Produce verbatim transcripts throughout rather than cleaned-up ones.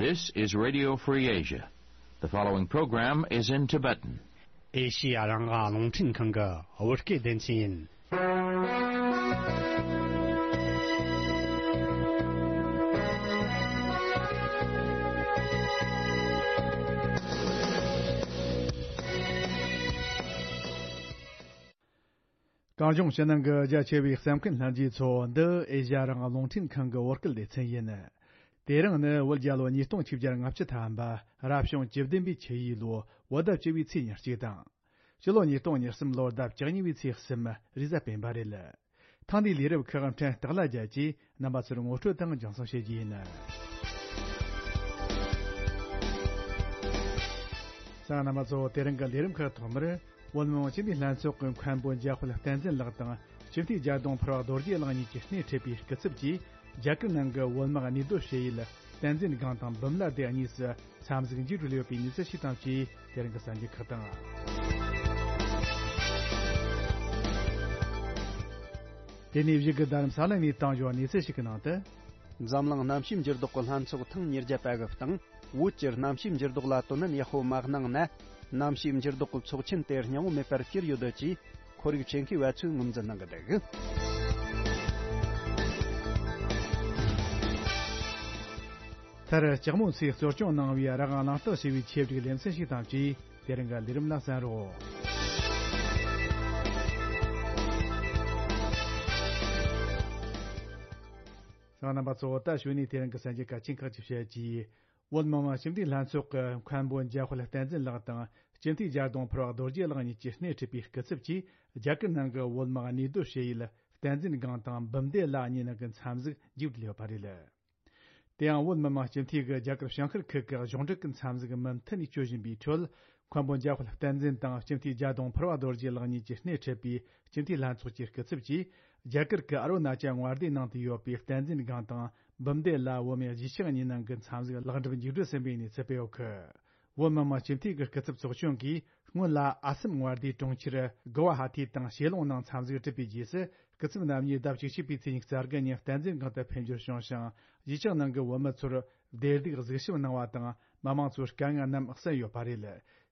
This is Radio Free Asia. The following program is in Tibetan. ཨེ་ཤི་ཡ་རང་དབང་རླུང་འཕྲིན་ཁང་གི་བོད་སྐད་སྡེ་ཚན་ཡིན། གངས་ལྗོངས་ཕྱི་ནང་གི་རྒྱ་ཆེ་བའི་གསན་མཁན་ལྷན་རྒྱས་ཚོ། འདི་ཨེ་ཤ་ཡ་རང་དབང་རླུང་འཕྲིན་ཁང་གི་བོད་སྐད་སྡེ་ཚན་ཡིན། དེ་རིང་ནི་བོད་རྒྱལ་ལོ་ཉིས་སྟོང་ཆིག་བརྒྱ་ལྔ་བཅུ་ཐམ་པ། རབ་བྱུང་བཅུ་བདུན་པའི་ཆུ་ཡོས་ལོ་བོད་ཟླ་བཅུ་བའི་ཚེས་ཉེར་གཅིག་དང་། སྤྱི་ལོ་ཉིས་སྟོང་ཉེར་གསུམ་ལོར་ཟླ་བཅུ་གཉིས་པའི་ཚེས་གསུམ། རེས་གཟའ་སྤེན་པ་རེད། ཐེངས་འདིའི་ལས་རིམ་ཁག་འཕྲིན་སྟེགས་ལ་རྒྱལ་གྱིས་རྣམ་པ་ཚོར་ངོ་སྤྲོད་དང་རྒྱང་སྲིང་བྱེད་རྒྱུ་ཡིན། ས་རྣམ་པ་ཚོ། དེ་རིང་གི་ལས་རིམ་ཁག་ཐོག་མར། བོད་མི་མང་སྤྱི་འཐུས་ལྷན་ཚོགས་ཀྱི་མཁན་པོ་འཇམ་དཔལ་བསྟན་འཛིན་ལགས་དང་སྤྱི་འཐུས་རྒྱ་གདོང་ཕུར་བ་རྡོ་རྗེ་ལགས་གཉིས་ཀྱིས་སྣེ་ཁྲིད་པའི་སྐུ་ཚབ་ཀྱིས། རྒྱ་གར་ནང་གི་བོད་དམག་གནས་སྡོད་བྱེད་ཡུལ་བསྟན་འཛིན་སྒང་དང་འབུམ་བླ་སྡེ་གཉིས་སུ་འཚམས་གཟིགས་མཇུག་སྒྲིལ་ཡོད་པའི་གནས་ཚུལ་ཞིག་དང་བཅས། དེ་རིང་གི་གསར་འགྱུར་ཁག་དང་། དེ་ནས་གཞུག་གི་རྡ་རམ་ས་ལ་ནས་བཏང་ཡོད་གནས་ཚུལ་ཞིག་གི་ནང་དུ། འཛམ་གླིང་གནམ་གཤིས་འགྱུར་ལྡོག་གི་ལྷན་ཚོགས་ཐེངས་ཉེར་བརྒྱ་པ་གི་སྟེང་། བོད་ཀྱི་གནམ་གཤིས་འགྱུར་ལྡོག་ལ་དོ་སྣང་ཡག་པོ་མ་གནང་ན། གནམ་གཤིས་འགྱུར་ལྡོག་གི་ཚོགས་ཆེན་དེ་སྙིང་བོ་མེད་པར་གྱུར་ཡོད་ཅེས་ཁོར་ཡུག་ཆེད་མཁས་པ་ཚོས་ངོས་འཛིན་གནང་གི་འདུག་མཐར་ལྕགས་མོ་ཚོས་གཙོ་སྐྱོང་གནང་བའི་རང་དབང་གླེང་སྟེགས་ཞེས་པའི་ཆེད་བསྒྲིགས་ལེ་ཚན་ཞིག་དང་བཅས། དེ་རིང་གི་ལས་རིམ་ལ་གསན་རོགས། ཚང་རྣམ་པ་ཚོ། ད་གཞུག་ནས་དེ་རིང་གི་གསར་འགྱུར་གལ་ཆེན་ཁག་ཅིག་བཤད་རྒྱུ། བོད་མི་མང་སྤྱི་འཐུས་ལྷན་ཚོགས་ཀྱི་མཁན་པོ་འཇམ་དཔལ་བསྟན་འཛིན་ལགས་དང་སྤྱི་འཐུས་རྒྱ་གདོང་ཕུར་བ་རྡོ་རྗེ་ལགས་གཉིས་ཀྱིས་སྣེ་ཁྲིད་པའི་སྐུ་ཚབ་ཀྱིས། རྒྱ་གར་ནང་གི་བོད་དམག་གནས་སྡོད་བྱེད་ཡུལ་བསྟན་འཛིན་སྒང་དང་འབུམ་སྡེ་ལ་གཉིས་ནང་གི་འཚམས་གཟིགས་མཇུག་སྒྲིལ་ཡོད་པ་རེད། དེ་ཡང་བོད་མི་མང་སྤྱི་འཐུས་ཀྱིས་རྒྱ་གར་བྱང་ཤར་ཁུལ་གྱི་གཞུང་འབྲེལ་གྱི་འཚམས་གཟིགས་མུ་མཐུད་ནས་སྤྱོད་བཞིན་པའི་ཁྲོད། མཁན་པོ་འཇམ་དཔལ་བསྟན་འཛིན་དང་སྤྱི་འཐུས་རྒྱ་གདོང་ཕུར་བ་རྡོ་རྗེ་ལགས་གཉིས་ཀྱིས་སྣེ་ཁྲིད་པའི་སྤྱི་འཐུས་ལྷན་ཚོགས་ཀྱི་སྐུ་ཚབ་ཀྱིས། རྒྱ་གར་གྱི་ཨ་རུ་ན་ཅལ་མངའ་སྡེའི་ནང་དུ་ཡོད་པའི་བསྟན་འཛིན་སྒང་དང་འབུམ་སྡེ་ལ་བོད་མིའི་གཞིས་ཆགས་གཉིས་ནང་གི་འཚམས་གཟིགས་ལེགས་འགྲུབ་མཇུག་སྒྲིལ་ཟིན་པའི་གནས་ཚུལ་སྤེལ་ཡོད་ཀི། བོད་མི་མང་སྤྱི་འཐུས་ཀྱི་སྐུ་ཚབ་ཚོགས་ཆུང་གིས་སྔོན་ལ་ཨ་སམ་མངའ་སྡེའི་གྲོང་ཁྱེར་གུ་ཝ་ཧ་ཐི་དང་ཞེ་ལུང་ནང་འཚམས་གཟིགས་བསྒྲུབས་པའི་རྗེས་སུ། སྐུ་ཚབ་རྣམ་གཉིས་ཟླ་བཅུ་གཅིག་པའི་ཚེས་ཉི་ཤུ་རྩ་དགུ་ཉིན་བསྟན་འཛིན་སྒང་དུ་ཕེབས་འབྱོར་བྱུང་ཞིང་། གཞིས་ཆགས་ནང་གི་བོད་མི་ཚོར་བདེ་སྡུག་གཟིགས་ཞིབ་གནང་བ་དང་། མི་མང་ཚོའི་དཀའ་ངལ་རྣམས་གསན་ཡོད་པ་རེད།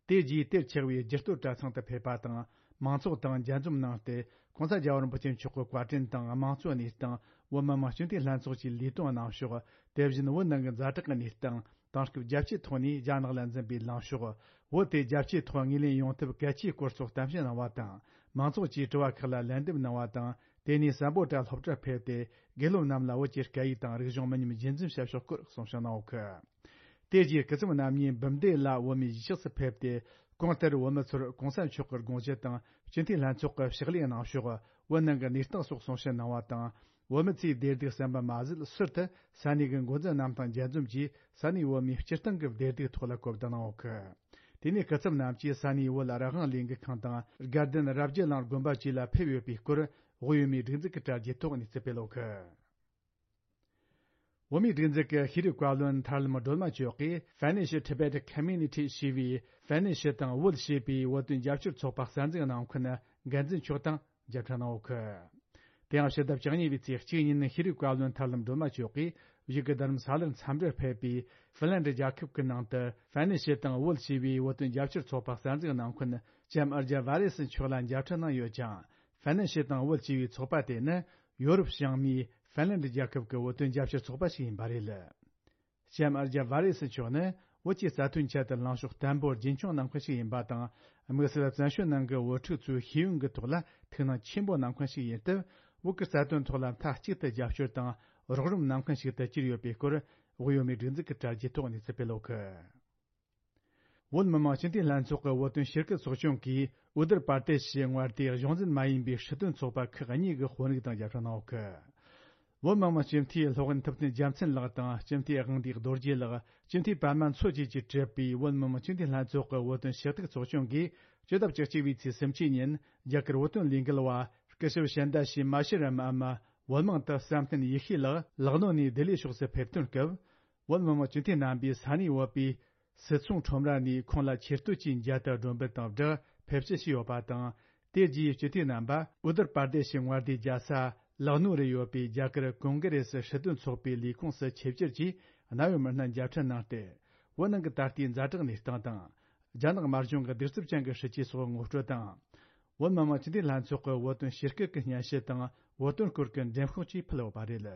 དེ་རྗེས་དེར་ཆགས་པའི་རྒྱུ་སྟོད་གྲྭ་ཚང་དུ་ཕེབས་པ་དང་། མང་ཚོགས་དང་མཇལ་འཛོམས་གནང་སྟེ། ྋགོང་ས་རྒྱལ་བ་རིན་པོ་ཆེ་མཆོག་གི་བཀའ་དྲིན་དང་དམངས་གཙོའི་གནས་སྟངས། བོད་མི་མང་སྤྱི་འཐུས་ལྷན་ཚོགས་ཀྱི་ལས་དོན་གནང་ཕྱོགས། དེ་བཞིན་བོད་ནང་གི་ཛ་དྲག་གི་གནས་སྟངས། དེང་སྐབས་རྒྱ་ཆེའི་ཐོག་ནས་རྒྱ་ནག་ལ་འཛིན་པའི་ལངས་ཕྱོགས། བོད་དེ་རྒྱ་ཆེའི་ཐོག་ངོས་ལེན་ཡོང་ཐབས་གལ་ཆེའི་སྐོར་སོགས་གཏམ་བཤད་གནང་བ་དང་། མང་ཚོགས་ཀྱིས་དྲི་བ་ཁག་ལ་ལན་འདེབས་གནང་བ་དང་། དེ་ནས་སམ་བྷོ་ཊ་སློབ་གྲྭར་ཕེབས་ཏེ། དགེ་སློབ་རྣམས་ལ་བོད་ཀྱི་སྐད་ཡིག་དང་རིག་གཞུང་མི་ཉམས་རྒྱུན་འཛིན་བྱ་ཕྱོགས་སྐོར་གསུང་བཤད་གནང་ཡོད་ཀི། དེ་རྗེས་སྐུ་ཚབ་རྣམ་གཉིས་འབུམ་སྡེ་ལ་བོད་མིའི་གཞིས་ཆགས་སུ་ཕེབས་ཏེ། གོང་ལྟར་བོད་མི་ཚོར་གོང་ས་མཆོག་གི་དགོངས་གཞི་དང་སྤྱི་འཐུས་ལྷན་ཚོགས་ཀྱི་ཕྱག་ལས་གནང་ཕྱོགས། བོད་ནང་གི་གནས་སྟངས་སོགས་གསུང་བཤད་གནང་བ་དང་། བོད་མི་ཚོས་བདེ་སྡུག་གསན་པ་མ་ཟད། ཟུར་དུ་ས་གནས་ཀྱི་འགོ་འཛིན་རྣམས་དང་མཇལ་འཛོམས་ཀྱིས་ས་གནས་བོད་མིའི་སྤྱིར་བཏང་གི་བདེ་སྡུག་ཐོག་ལ་གོ་བསྡུར་གནང་ཡོད་ཀི། དེ་ནས་སྐུ་ཚབ་རྣམས་ཀྱིས་ས་གནས་བོད་རང་དབང་ལས་འགུལ་ཁང་དང་དགའ་ལྡན་རབ་རྒྱས་གླིང་དགོན་པ་བཅས་ལ་ཕེབས་ཡོད་པའི་སྐོར། དབུས་ཡུལ་མིའི་སྒྲིག་འཛུགས་ཀྱི་དྲ་རྒྱའི་ཐོག་གནས་ཚུལ་སྤེལ་ཡོད་ཀི། བོད་མིའི་སྒྲིག་འཛུགས་ཀྱི་ཤེས་རིག་བཀའ་བློན་ཐར་ལམ་སྒྲོལ་མ་མཆོག་གིས་Finnish Tibet Community ཞེས་པའི་ཧྥ་ནན་ཤི་དང་བོད་ཞེས་པའི་བོད་དོན་རྒྱབ་སྐྱོར་ཚོགས་པ་གསར་འཛུགས་གནང་མཁན་འགན་འཛིན་མཆོག་དང་མཇལ་འཕྲད་གནང་ཡོད་ཀི། དེ་ཡང་ཕྱི་ཟླ་བཅུ་གཉིས་པའི་ཚེས་གཅིག་ཉིན་ཤེས་རིག་བཀའ་བློན་ཐར་ལམ་སྒྲོལ་མ་མཆོག་གིས་བཞུགས་སྒར་རྡ་རམ་ས་ལར་འཚམས་འདྲིར་ཕེབས་པའི་ཧྥིན་ལན་ཌི་རྒྱལ་ཁབ་ཀྱི་ནང་དུ་ཧྥ་ནན་ཤི་དང་བོད་ཞེས་པའི་བོད་དོན་རྒྱབ་སྐྱོར་ཚོགས་པ་གསར་འཛུགས་གནང་མཁན་ལྕམ་ཨར་ཇ་ཝ་རེ་སི་མཆོག་ལ་མཇལ་འཕྲད་གནང་ཡོད་ཅིང་། ཧྥ་ནན་ཤི་དང་བོད་ཞེས་པའི་ཚོགས་པ་དེ་ནི་ཡོ་རོབ་བྱང་མའི་ཧྥིན་ལན་ཌི་རྒྱལ་ཁབ་ཀྱི་བོད་དོན་རྒྱབ་སྐྱོར་ཚོགས་པ་ཞིག་ཡིན་པ་རེད། ལྕམ་ཨར་ཇ་ཝ་རེ་སི་མཆོག་ནི་བོད་ཀྱི་རྩ་དོན་ཆེད་དུ་ལངས་ཕྱོགས་བརྟན་པོ་རྒྱུན་འཁྱོངས་གནང་མཁན་ཞིག་ཡིན་པ་དང་། དམིགས་བསལ་བཙན་བྱོལ་ནང་གི་བོད་ཕྲུག་ཚོའི་ཤེས་ཡོན་གྱི་ཐོག་ལ་ཐུགས་སྣང་ཆེན་པོ་གནང་མཁན་ཞིག་ཡིན་སྟབས། བོད་ཀྱི་རྩ་དོན་ཐོག་ལ་མཐའ་གཅིག་ཏུ་རྒྱབ་སྐྱོར་དང་རོགས་རམ་གནང་མཁན་ཞིག་ཏུ་གྱུར་ཡོད་པའི་སྐོར། དབུས་ཡུལ་མིའི་སྒྲིག་འཛུགས་ཀྱི་དྲ་རྒྱའི་ཐོག་གནས་ཚུལ་སྤེལ་ཡོད་ཀི། བོད་མི་མང་སྤྱི་འཐུས་ལྷན་ཚོགས་ཀྱི་བོད་དོན་ཞིབ་དཔྱོད་ཚོགས་ཆུང་གིས་ཨུ་དུར་པར་ཏེ་ཤི་མངའ་སྡེའི་གཞུང་འཛིན་མ་ཡིན་པའི་སྲིད་དོན་ཚོགས་པ་ཁག་གཉིས་ཀྱི་དཔོན་རིགས་དང་མཇལ་འཕྲད་གནང་ཡོད་ཀི། བོད་མི་མང་སྤྱི་འཐུས་སློབ་དཔོན་ཐུབ་བསྟན་རྒྱལ་མཚན་ལགས་དང་སྤྱི་འཐུས་དབང་འདུས་རྡོ་རྗེ་ལགས། སྤྱི་འཐུས་པད་མ་མཚོ་བཅས་ཀྱིས་གྲུབ་པའི་བོད་མི་མང་སྤྱི་འཐུས་ལྷན་ཚོགས་ཀྱི་བོད་དོན་ཞིབ་ཚགས་ཚོགས་ཆུང་གིས་ཕྱི་ཟླ་བཅུ་གཅིག་པའི་ཚེས་སུམ་ཅུ་ཉིན་རྒྱ་གར་བོད་དོན་ལས་འགུལ་བ་སྐུ་ཞབས་ཤན་ད་ཤི་མ་ཤི་རམ་འམ། བོད་དམངས་དུ་བསམ་གཏན་ཡེ་ཤེས་ལགས་ལག་ནོ་ནས་ལྡི་ལི་ཕྱོགས་སུ་ཕེབས་ཐོན་སྐབས། བོད་མི་མང་སྤྱི་འཐུས་རྣམ་པས་ས་གནས་བོད་པའི་སིད་ཚོང་ཁྲོམ་ར་ནས་ཁོང་ལ་ཆེ་བསྟོད་ཀྱི་མཇལ་དར་སྒྲོན་འབུལ་དང་སྦྲགས་ཕེབས་བསུ་ཞུས་ཡོད་པ་དང་། དེ་རྗེས་སྤྱི་འཐུས་རྣམ་པ་ཨུ་དུར་པར་དེ་ཤི་མངའ་སྡེའི་རྒྱལ་ས་ལག་ནོ་རུ་ཡོད་པའི་རྒྱ་གར་ཀོང་གྷི་རེ་སི་སྲིད་དོན་ཚོགས་པའི་ལས་ཁུངས་སུ་ཆིབས་བསྒྱུར་གྱིས་ གནད་ཡོད་མི་སྣ་མཇལ་འཕྲད་གནང་སྟེ། བོད་ནང་གི་ད་ལྟའི་ཛ་དྲག་གནས་སྟངས་དང་། རྒྱ་ནག་དམར་གཞུང་གི་གདུག་རྩུབ་ཅན་གྱི་སྲིད་བྱུས་སོགས་ངོ་སྤྲོད་དང་། བོད་མི་མང་སྤྱི་འཐུས་ལྷན་ཚོགས་ཀྱི་བོད་དོན་ཞིབ་བསྐྱོད་ཀྱི་སྙན་ཞུ་དང་བོད་དོན་སྐོར་གྱི་འགྲེམས་ཤོག་བཅས་ཕུལ་ཡོད་པ་རེད།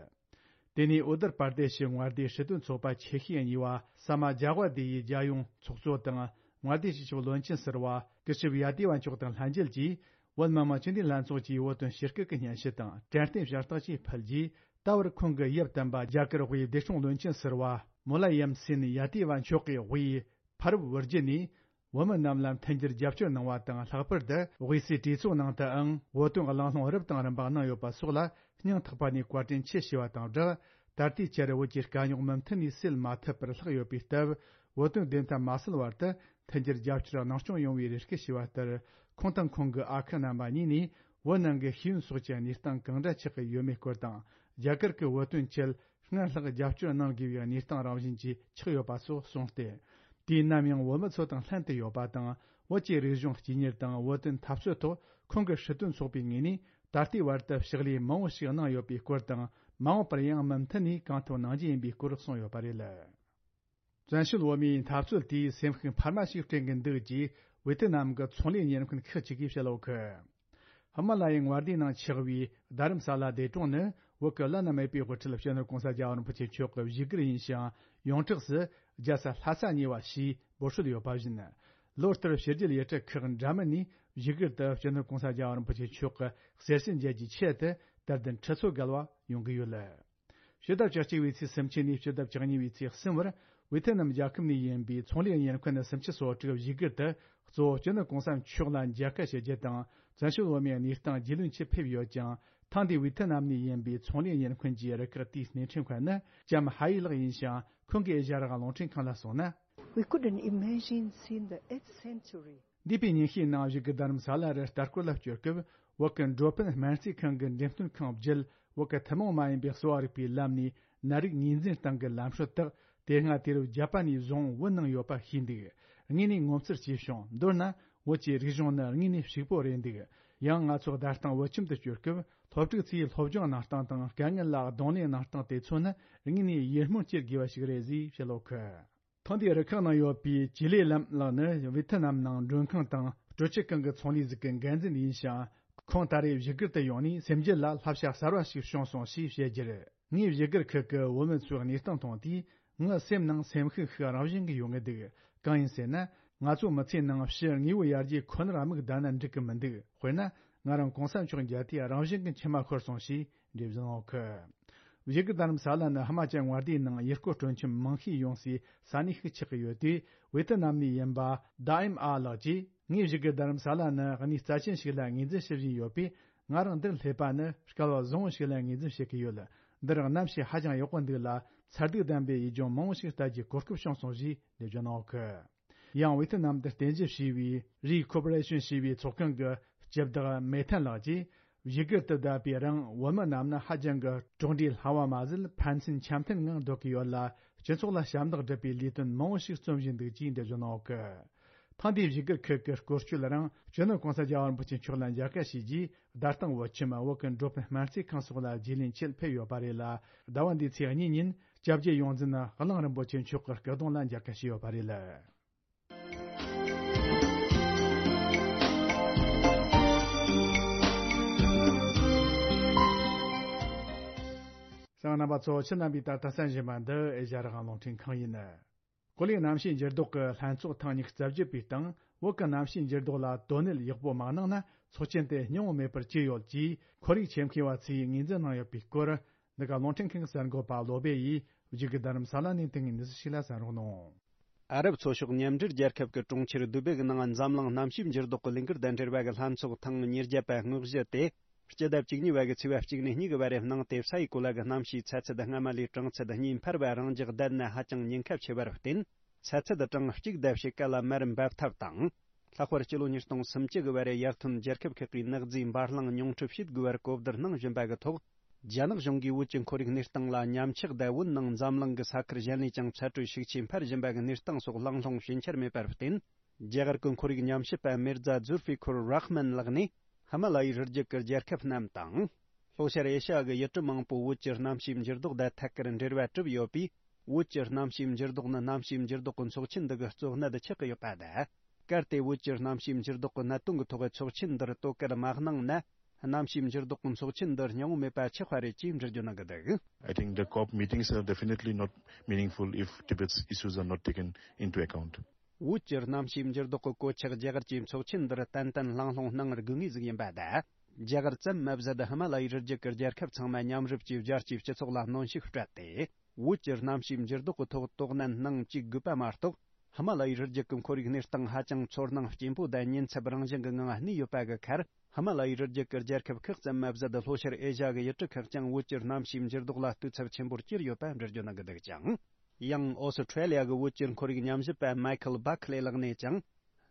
དེ་ནས་ཨུ་ཏར་པར་དེ་ཤི་མངའ་སྡེའི་སྲིད་དོན་ཚོགས་པ་ཆེ་ཤོས་གཉིས་པ་ས་མ་ཇཱ་ཝ་དེ་ཡི་རྒྱལ་ཡོངས་ཚོགས་གཙོ་དང་མངའ་སྡེའི་སྤྱི་ཁྱབ་བློན་ཆེན་ཟུར་པ་ཀི་ཤིབ་ཡ་ཏི་ཝ་མཆོག་དང་ལྷན་རྒྱས་ཀྱིས་བོད་མི་མང་སྤྱི་འཐུས་ལྷན་ཚོགས་ཀྱིས་བོད་དོན་ཞིབ་བསྐྱོད་ཀྱི་སྙན་ཞུ་དང་དྲན་རྟེན་ཞལ་རྟགས་བཅས་ཕུལ་རྗེས། ད་བར་ཁོང་གི་ཡབ་དམ་པ་རྒྱ་གར་དབུས་བདེ་སྲུང་བློན་ཆེན་ཟུར་པ་མུ་ལ་ཡམ་སེན་ཡ་ཏི་ཝ་མཆོག་གིས་དབུས་ཕ་རབས་བུ་བརྒྱུད་ནས། བོད་མི་རྣམས་ལ་མཐུན་འགྱུར་རྒྱབ་སྐྱོར་གནང་བ་དང་། ལྷག་པར་དུ་དབུས་སའི་གྲོས་ཚོགས་ནང་དུའང་བོད་དོན་གླེང་སློང་རབ་དང་རིམ་པ་གནང་ཡོད་པ་སོགས་ལ་སྙིང་ཐག་པ་ནས་བཀའ་དྲིན་ཆེ་ཞུ་བ་དང་སྦྲགས། ད་ལྟའི་ཆར་བོད་ཀྱི་དཀའ་རྙོག་མུ་མཐུད་ནས་སེལ་མ་ཐུབ་པར་ལྷག་ཡོད་པའི་སྟབས། བོད་དོན་བདེན་མཐའ་མ་གསལ་བར་དུ་མཐུན་འགྱུར་རྒྱབ་སྐྱོར་གནང་སྐྱོང་ཡོང་བའི་རེ་སྐུལ་ཞུས་པ་ལྟར། ཁོང་དང་ཁོང་གི་ཨ་ཁུ་རྣམ་པ་གཉིས་ནས་བོད་ནང་གི་ཤེས་ཡོན་སོགས་ཀྱི་གནས་སྟངས་གང་འདྲ་ཆགས་ཀྱི་ཡོད་མེད་སྐོར་དང་། རྒྱ་གར་གྱི་བོད་དོན་ཆེད། སྔར་ལྷག་རྒྱབ་སྐྱོར་གནང་དགོས་པའི་གནས་སྟངས་རང་བཞིན་གྱིས་ཆགས་ཡོད་པ་སོགས་གསུངས་ཏེ། དུས་ནམ་ཡང་བོད་མི་ཚོ་དང་ལྷན་དུ་ཡོད་པ་དང་། བོད་ཀྱི་རིག་གཞུང་གཅེས་གཉེར་དང་བོད་དོན་འཐབ་རྩོད་ཐོག་ཁོང་གི་སྲིད་དོན་ཚོགས་པའི་ངོས་ནས་ད་ལྟའི་བར་དུ་ཕྱག་ལས་མང་བོ་ཞིག་གནང་ཡོད་པའི་སྐོར་དང་། མ་འོངས་པར་ཡང་མུ་མཐུད་ནས་གང་ཐུབ་གནང་རྒྱུ་ཡིན་པའི་སྐོར་གསུངས་ཡོད་པ་རེད། བཙན་བྱོལ་བོད་མིའི་འཐབ་རྩོད་དེས་སེམས་ཤུགས་འཕར་མ་ཞིག་སྤྲད་ཀྱི་འདུག་ཅེས་ཝེ་ཐི་ནམ་གྱི་ཚོང་ལས་གཉེར་མཁན་ཁག་ཅིག་གིས་བཤད་ཡོད་གི། ཧི་མ་ལ་ཡའི་མངའ་སྡེའི་ནང་ཆགས་པའི་རྡ་རམ་ས་ལ་ལྡེ་གྲོང་ནི་བོད་ཀྱི་བླ་ན་མེད་པའི་དབུ་ཁྲིད་སྤྱི་ནོར་༸གོང་ས་༸རྒྱལ་བ་རིན་པོ་ཆེ་མཆོག་གི་བཞུགས་སྒར་ཡིན་ཞིང་། ཡོངས་གྲགས་སུ་རྒྱལ་ས་ལྷ་ས་གཉིས་པ་ཞེས་འབོད་སྲོལ་ཡོད་པ་བཞིན། ལོ་ལྟར་ཕྱི་རྒྱལ་ཡུལ་གྲུ་ཁག་འདྲ་མིན་ནས་བཞུགས་སྒར་དུ་སྤྱི་ནོར་༸གོང་ས་༸རྒྱལ་བ་རིན་པོ་ཆེ་མཆོག་གི་གསེར་བྱེས་མཇལ་རྒྱུའི་ཆེད་དུ་དད་ལྡན་ཁྲི་ཚོ་བརྒལ་བ་ཡོང་གི་ཡོད། ཕྱི་ཟླ་བཅུ་གཅིག་པའི་ཚེས་སུམ་ཅུ་ནས་ཕྱི་ཟླ་བཅུ་གཉིས་པའི་ཚེས་གསུམ་བར་ཝེ་ཐི་ནམ་རྒྱལ་ཁབ་ནས་ཡིན་པའི་ཚོང་ལས་གཉེར་མཁན་སུམ་ཅུ་སོ་དྲུག་བཞུགས་སྒར་དུ་གཙོ་བོ་སྤྱི་ནོར་༸གོང་ས་མཆོག་ལ་མཇལ་ཁ་ཞུ་རྒྱུ་དང་། བཙན་བྱོལ་བོད་མིའི་གནས་སྟངས་རྒྱུས་ལོན་ཆེད་ཕེབས་ཡོད་ཀྱང་། ཐེངས་འདིའི་ཝེ་ཐི་ནམ་ནས་ཡིན་པའི་ཚོང་ལས་གཉེར་མཁན་གྱི་རུ་ཁག་དེའི་སྣེ་ཁྲིད་མཁན་ནི་ལྕམ་ཧ་ཡི་ལགས་ཡིན་ཞིང་། ཁོང་གིས་ཨེ་ཤ་ཡ་རང་དབང་རླུང་འཕྲིན་ཁང་ལ་གསུངས་ན། We couldn't imagine seeing the eighth century འདས་པའི་ཉིན་ཤས་ནང་བཞུགས་སྒར་རྡ་རམ་ས་ལ་རུ་ལྟ་སྐོར་ལ་བསྐྱོད་སྐབས། བོད་ཀྱི་འགྲོ་ཕན་སྨན་རྩིས་ཁང་གི་འགྲེམས་སྟོན་ཁང་བརྒྱུད། བོད་ཀྱི་ཐུན་མོང་མ་ཡིན་པའི་གསོ་བ་རིག་པའི་ལམ་ནས་ནད་རིགས་ངོས་འཛིན་སྟངས་ཀྱི་ལམ་སྲོལ་དག་དེ་སྔ་དུས་རབས་བརྒྱད་པ་ནས་བཟུང་བོད་ནང་ཡོད་པ་ཤེས་འདུག་ངས་ནས་ངོ་མཚར་སྐྱེས་བྱུང་། མདོར་ན། བོད་ཀྱི་རིག་གཞུང་ནི་དངོས་གནས་ཕྱུག་པོ་རེད་འདུག་ཡང་ང་ཚོ་བདག་སྟངས་བོད་ཁྱིམ་དུ་བསྐྱོད་སྐབས། སློབ་ཕྲུག་ཚོའི་སློབ་སྦྱོང་གནང་སྟངས་དང་། དཀའ་ངལ་ལ་གདོང་ལེན་གནང་སྟངས་དེ་ཚོ་ནི་དངོས་གནས་ཡིད་སྨོན་སྐྱེ་དགོས་པ་ཞིག་རེད་ཅེས་བཤད་ཡོད་གི། ཐེངས་འདིའི་རུ་ཁག་ནང་ཡོད་པའི་ཅི་ལེ་ལམ་ལགས་ནི་ཝེ་ཐི་ནམ་ནང་མགྲོན་ཁང་དང་སྤྲོ་སྐྱིད་ཁང་གི་ཚོང་ལས་ཟིག་གི་འགན་འཛིན་ཡིན་ཞིང་། ཁོང་ད་རེས་བཞུགས་སྒར་དུ་ཡོང་ནས་སེམས་རྒྱུད་ལ་བསླབ་བྱ་གསར་བ་ཞིག་བྱུང་སོང་ཞེས་བཤད་རྒྱུར། ངས་བཞུགས་སྒར་ཁུལ་གྱི་བོད་མི་ཚོའི་གནས་སྟངས་མཐོང་དུས། ངའི་སེམས་ནང་སེམས་ཤུགས་ཤིག་རང་བཞིན་གྱིས་ཡོང་གི་འདུག་གང་ཡིན་ཟེར་ན། ང་ཚོ་མི་ཚེའི་ནང་ཕྱི་དངོས་པོ་ཡར་རྒྱས་ཁོ་ནར་དམིགས་བསྡད་ན་འགྲིག་གི་མི་འདུག་དཔེར་ན། ང་རང་གོང་ས་མཆོག་མཇལ་དུས་རང་བཞིན་གྱིས་མཆི་མ་ཤོར་སོང་ཞེས་འགྲེལ་བརྗོད་གནང་ཡོད་གི། བཞུགས་སྒར་རྡ་རམ་ས་ལ་ནི་ཧི་མ་ཅལ་མངའ་སྡེའི་ནང་ཡུལ་སྐོར་སྤྲོ་འཆམ་མང་ཤས་ཡོང་སའི་ས་གནས་ཤིག་ཆགས་ཀྱི་ཡོད་དུས། ཝེ་ཐི་ནམ་ནས་ཡིན་པ་དཱ་ཨིམ་ཨ་ལགས་ཀྱིས། ངས་བཞུགས་སྒར་རྡ་རམ་ས་ལ་ནི་གནས་རྩ་ཆེན་ཞིག་ལ་ངོས་འཛིན་ཞུ་བཞིན་ཡོད་པས། ང་རང་འདིར་སླེབས་པ་ནི་སྐལ་བ་བཟང་བོ་ཞིག་ལ་ངོས་འཛིན་བྱེད་ཀྱི་ཡོད། འདིར་གནམ་གཤིས་ཧ་ཅང་ཡག་པོ་འདུག་ལ། མཚར་སྡུག་ལྡན་པའི་ཡུལ་ལྗོངས་མང་བོ་ཞིག་ལྟ་རྒྱུའི་གོ་སྐབས་བྱུང་སོང་ཞེས་འགྲེལ་བརྗོད་གནང་ཡོད་གི། ཡང་ཝེ་ཐི་ནམ་དུ་རྟེན་གཞི་བྱས་པའི་རི་ཁོ་པོ་རེ་ཤོན་ཞེས་པའི་ཚོགས་ཁང་གི་སྤྱི་བདག་མེ་ཐན་ལགས་ཀྱིས། བཞུགས་སྒར་དུ་བསྡད་པའི་རིང་བོད་མི་རྣམས་ནི་ཧ་ཅང་གི་གྲོགས་འདྲིས་སླ་བ་མ་ཟད་ཕན་ཚུན་འཆམ་མཐུན་ངང་སྡོད་ཀྱི་ཡོད་ལ། སྤྱི་ཚོགས་ལ་ཞབས་འདེགས་སྒྲུབ་པའི་ལས་དོན་མང་བོ་ཞིག་རྩོམ་བཞིན་འདུག་ཅེས་འགྲེལ་བརྗོད་གནང་ཡོད་གི། ཐེངས་འདིའི་བཞུགས་སྒར་ཁུལ་གྱི་སྐོར་སྐྱོད་རིང་སྤྱི་ནོར་༸གོང་ས་༸རྒྱལ་བ་རིན་པོ་ཆེ་མཆོག་ལ་མཇལ་ཁ་ཞུས་རྗེས། བདག་དང་བོད་ཁྱིམ་བོད་ཀྱི་འགྲོ་ཕན་སྨན་རྩིས་ཁང་སོགས་ལ་རྗེས་ལེན་ཆེད་ཕེབས་ཡོད་པ་རེད་ལ། ཟླ་བ་འདིའི་ཚེས་གཉིས་ཉིན་སྐྱབས་རྗེ་ཡོངས་འཛིན་གླིང་རིན་པོ་ཆེ་མཆོག་གི་སྐུ་གདུང་ལ་མཇལ་ཁ་ཞུས་ཡོད་པ་རེད། གསན་མཁན་རྣམ་པ་ཚོ། ཁྱེད་རྣམ་པས་ད་ལྟ་གསན་བཞིན་པ་འདི་ཨེ་ཤ་ཡ་རང་དབང་རླུང་འཕྲིན་ཁང་ཡིན། ཀོ་ལི་གནམ་གཤིས་འགྱུར་ལྡོག་གི་ལྷན་ཚོགས་ཐེངས་ཉི་ཤུ་རྩ་བརྒྱད་པའི་སྟེང་། བོད་ཀྱི་གནམ་གཤིས་འགྱུར་ལྡོག་ལ་དོ་གནད་ཡག་པོ་མ་གནང་ན་ཚོགས་ཆེན་དེ་སྙིང་བོ་མེད་པར་གྱུར་ཡོད་ཅེས་ཁོར་ཡུག་ཆེད་མཁས་པ་ཚོས་ངོས་འཛིན་གནང་ཡོད་པའི་སྐོར། འདི་ག་རླུང་འཕྲིན་ཁང་གསར་འགོད་པ་བློ་བྷེ་ཡིས་བཞུགས་སྒར་རྡ་རམ་ས་ལ་ནས་དེ་སྔའི་གནས་ཚུལ་ཞིག་ལ་གསན་རོགས་གནང་། ཨ་རབ་ཚོ་ཤོག་མཉམ་འབྲེལ་རྒྱལ་ཁབ་ཀྱི་གྲོང་ཁྱེར་དུ་བེ་གི་ནང་འཛམ་གླིང་གནམ་གཤིས་འགྱུར་ལྡོག་གི་ལས་འགུལ་དང་འབྲེལ་བ་གི་ལྷན་ཚོགས་ཐེངས་ཉེར་བརྒྱད་པ་དངོས་གཞི་དེ། སྤྱི་ཟླ་བཅུ་གཉིས་པ་གི་ཚེས་པ་གཅིག་ནས་གཉིས་ཀྱི་བར་རུ་གནང་སྟེ། ས་ཡི་གོ་ལ་གི་གནམ་གཤིས་ཚ་ཚད་སྔ་མ་ལས་གྲང་ཚད་གཉིས་འཕར་བ་རང་འཇགས་བསྡད་ནས་ཧ་ཅང་ཉེན་ཁ་ཆེ་བར་བརྟེན། ཚ་ཚད་གྲངས་གཅིག་ལྡབ་ཕྱེད་ཀ་ལ་མར་འབབ་ཐབས་དང་། ལྷག་པར་སྤྱི་ལོ་ཉིས་སྟོང་སུམ་ཅུ་གི་བར་རུ་ཡར་ཐོན་རྒྱལ་ཁབ་ཁག་གིས་ནག་རྫས་འབར་རླུང་ཉུང་འཕྲི་བྱེད་དགོས་པར་གོ་བསྡུར་གནང་བཞིན་པ་གི་ཐོག་རྒྱ་ནག་གཞུང་གིས་བོད་ཀྱི་ཁོར་ཡུག་གནས་སྟངས་ལ་ཉམས་ཆག་དང་། བོད་ནང་འཛམ་གླིང་གི་ས་ཁུལ་གཞན་ལས་ཀྱང་ཚ་དྲོད་ཤུགས་ཆེ་འཕར་བཞིན་པ་གི་གནས་སྟངས་སོགས་གླེང་སློང་བྱེད་འཆར་མེད་པར་བརྟེན། རྒྱ་གར་གྱི་ཁོར་ཡུག་ཉམས་ཞིབ་པ་མིར་ཛ་ཛུལ་ཧྥི་ཁུར་རཱ་ཧ་མན་ལགས་ནས། ཧི་མ་ལ་ཡའི་རི་རྒྱུད་ཀྱི་རྒྱལ་ཁབ་རྣམས་དང་། ལྷོ་ཤར་ཨེ་ཤ་ཡ་གི་ཡུལ་གྲུ་མང་པོ་བོད་ཀྱི་གནམ་གཤིས་འགྱུར་ལྡོག་དང་ཐད་ཀར་འབྲེལ་བ་གྲུབ་ཡོད་པས། བོད་ཀྱི་གནམ་གཤིས་འགྱུར་ལྡོག་ནི་གནམ་གཤིས་འགྱུར་ལྡོག་གི་ཚོགས་ཆེན་འདི་གི་གཙོ་གནད་ཆགས་ཀྱི་ཡོད་པ་དང་། གལ་ཏེ་བོད་ཀྱི་གནམ་གཤིས་འགྱུར་ལྡོག་གི་གནད་དོན་གྱི་ཐོག་ཚོགས་ཆེན་འདིར་དོ་ཁུར་མ་གནང་ན། གནམ་གཤིས་འགྱུར་ལྡོག་གི་ཚོགས་ཆེན་འདི་སྙིང་བོ་མེད་པ་ཆགས་པ་རེད་ཅེས་འགྲེལ་བརྗོད་གནང་གི་འདུག I think the COP meetings are definitely not meaningful if Tibet's issues are not taken into account. བོད་ཀྱི་གནམ་གཤིས་འགྱུར་ལྡོག་གི་གོད་ཆག་རྒྱ་གར་གྱི་ཚོགས་ཆེན་འདིར་ཏན་ཏན་གླེང་སློང་གནང་དགོས་ངེས་ཟིག་ཡིན་པ་དང་། རྒྱ་གར་ཙམ་མ་ཟད་ཧི་མ་ལ་ཡའི་རི་རྒྱུད་ཀྱི་རྒྱལ་ཁབ་ཚང་མ་མཉམ་རུབ་ཀྱིས་རྒྱལ་སྤྱིའི་སྤྱི་ཚོགས་ལ་གནོན་ཤུགས་སྤྲད་དེ། བོད་ཀྱི་གནམ་གཤིས་འགྱུར་ལྡོག་གི་ཐོག་དོ་སྣང་གནང་བཅུག་དགོས་པ་མ་གཏོགས། ཧི་མ་ལ་ཡའི་རི་རྒྱུད་ཀྱི་ཁོར་ཡུག་གནས་སྟངས་ཧ་ཅང་ཚོར་སྣང་སྐྱེན་པོ་དང་ཉེན་ཚབས་རང་བཞིན་གྱི་ངང་གནས་ཡོད་པ་གི་ཁར། ཧི་མ་ལ་ཡའི་རི་རྒྱུད་ཀྱི་རྒྱལ་ཁབ་ཁག་ཙམ་མ་ཟད་ལྷོ་ཤར་ཨེ་ཤ་གི་ཡུལ་གྲུ་ཁག་ཀྱང་བོད་ཀྱི་གནམ་གཤིས་འགྱུར་ལྡོག་ལ་ལྟོས་ཚབས་ཆེན་པོར་གྱུར་ཡོད་པ་འགྲེལ་བརྗོད་གནང་གི་འདུག་ཅིང་། ཡང་ཨོ་སི་ཁྲེ་ལི་ཡ་གི་བོད་ཀྱི་ཁོར་ཡུག་ཉམས་ཞིབ་པ་མའི་ཁལ་བྷ་ཁ་ལེ་ལགས་ནས་ཀྱང་།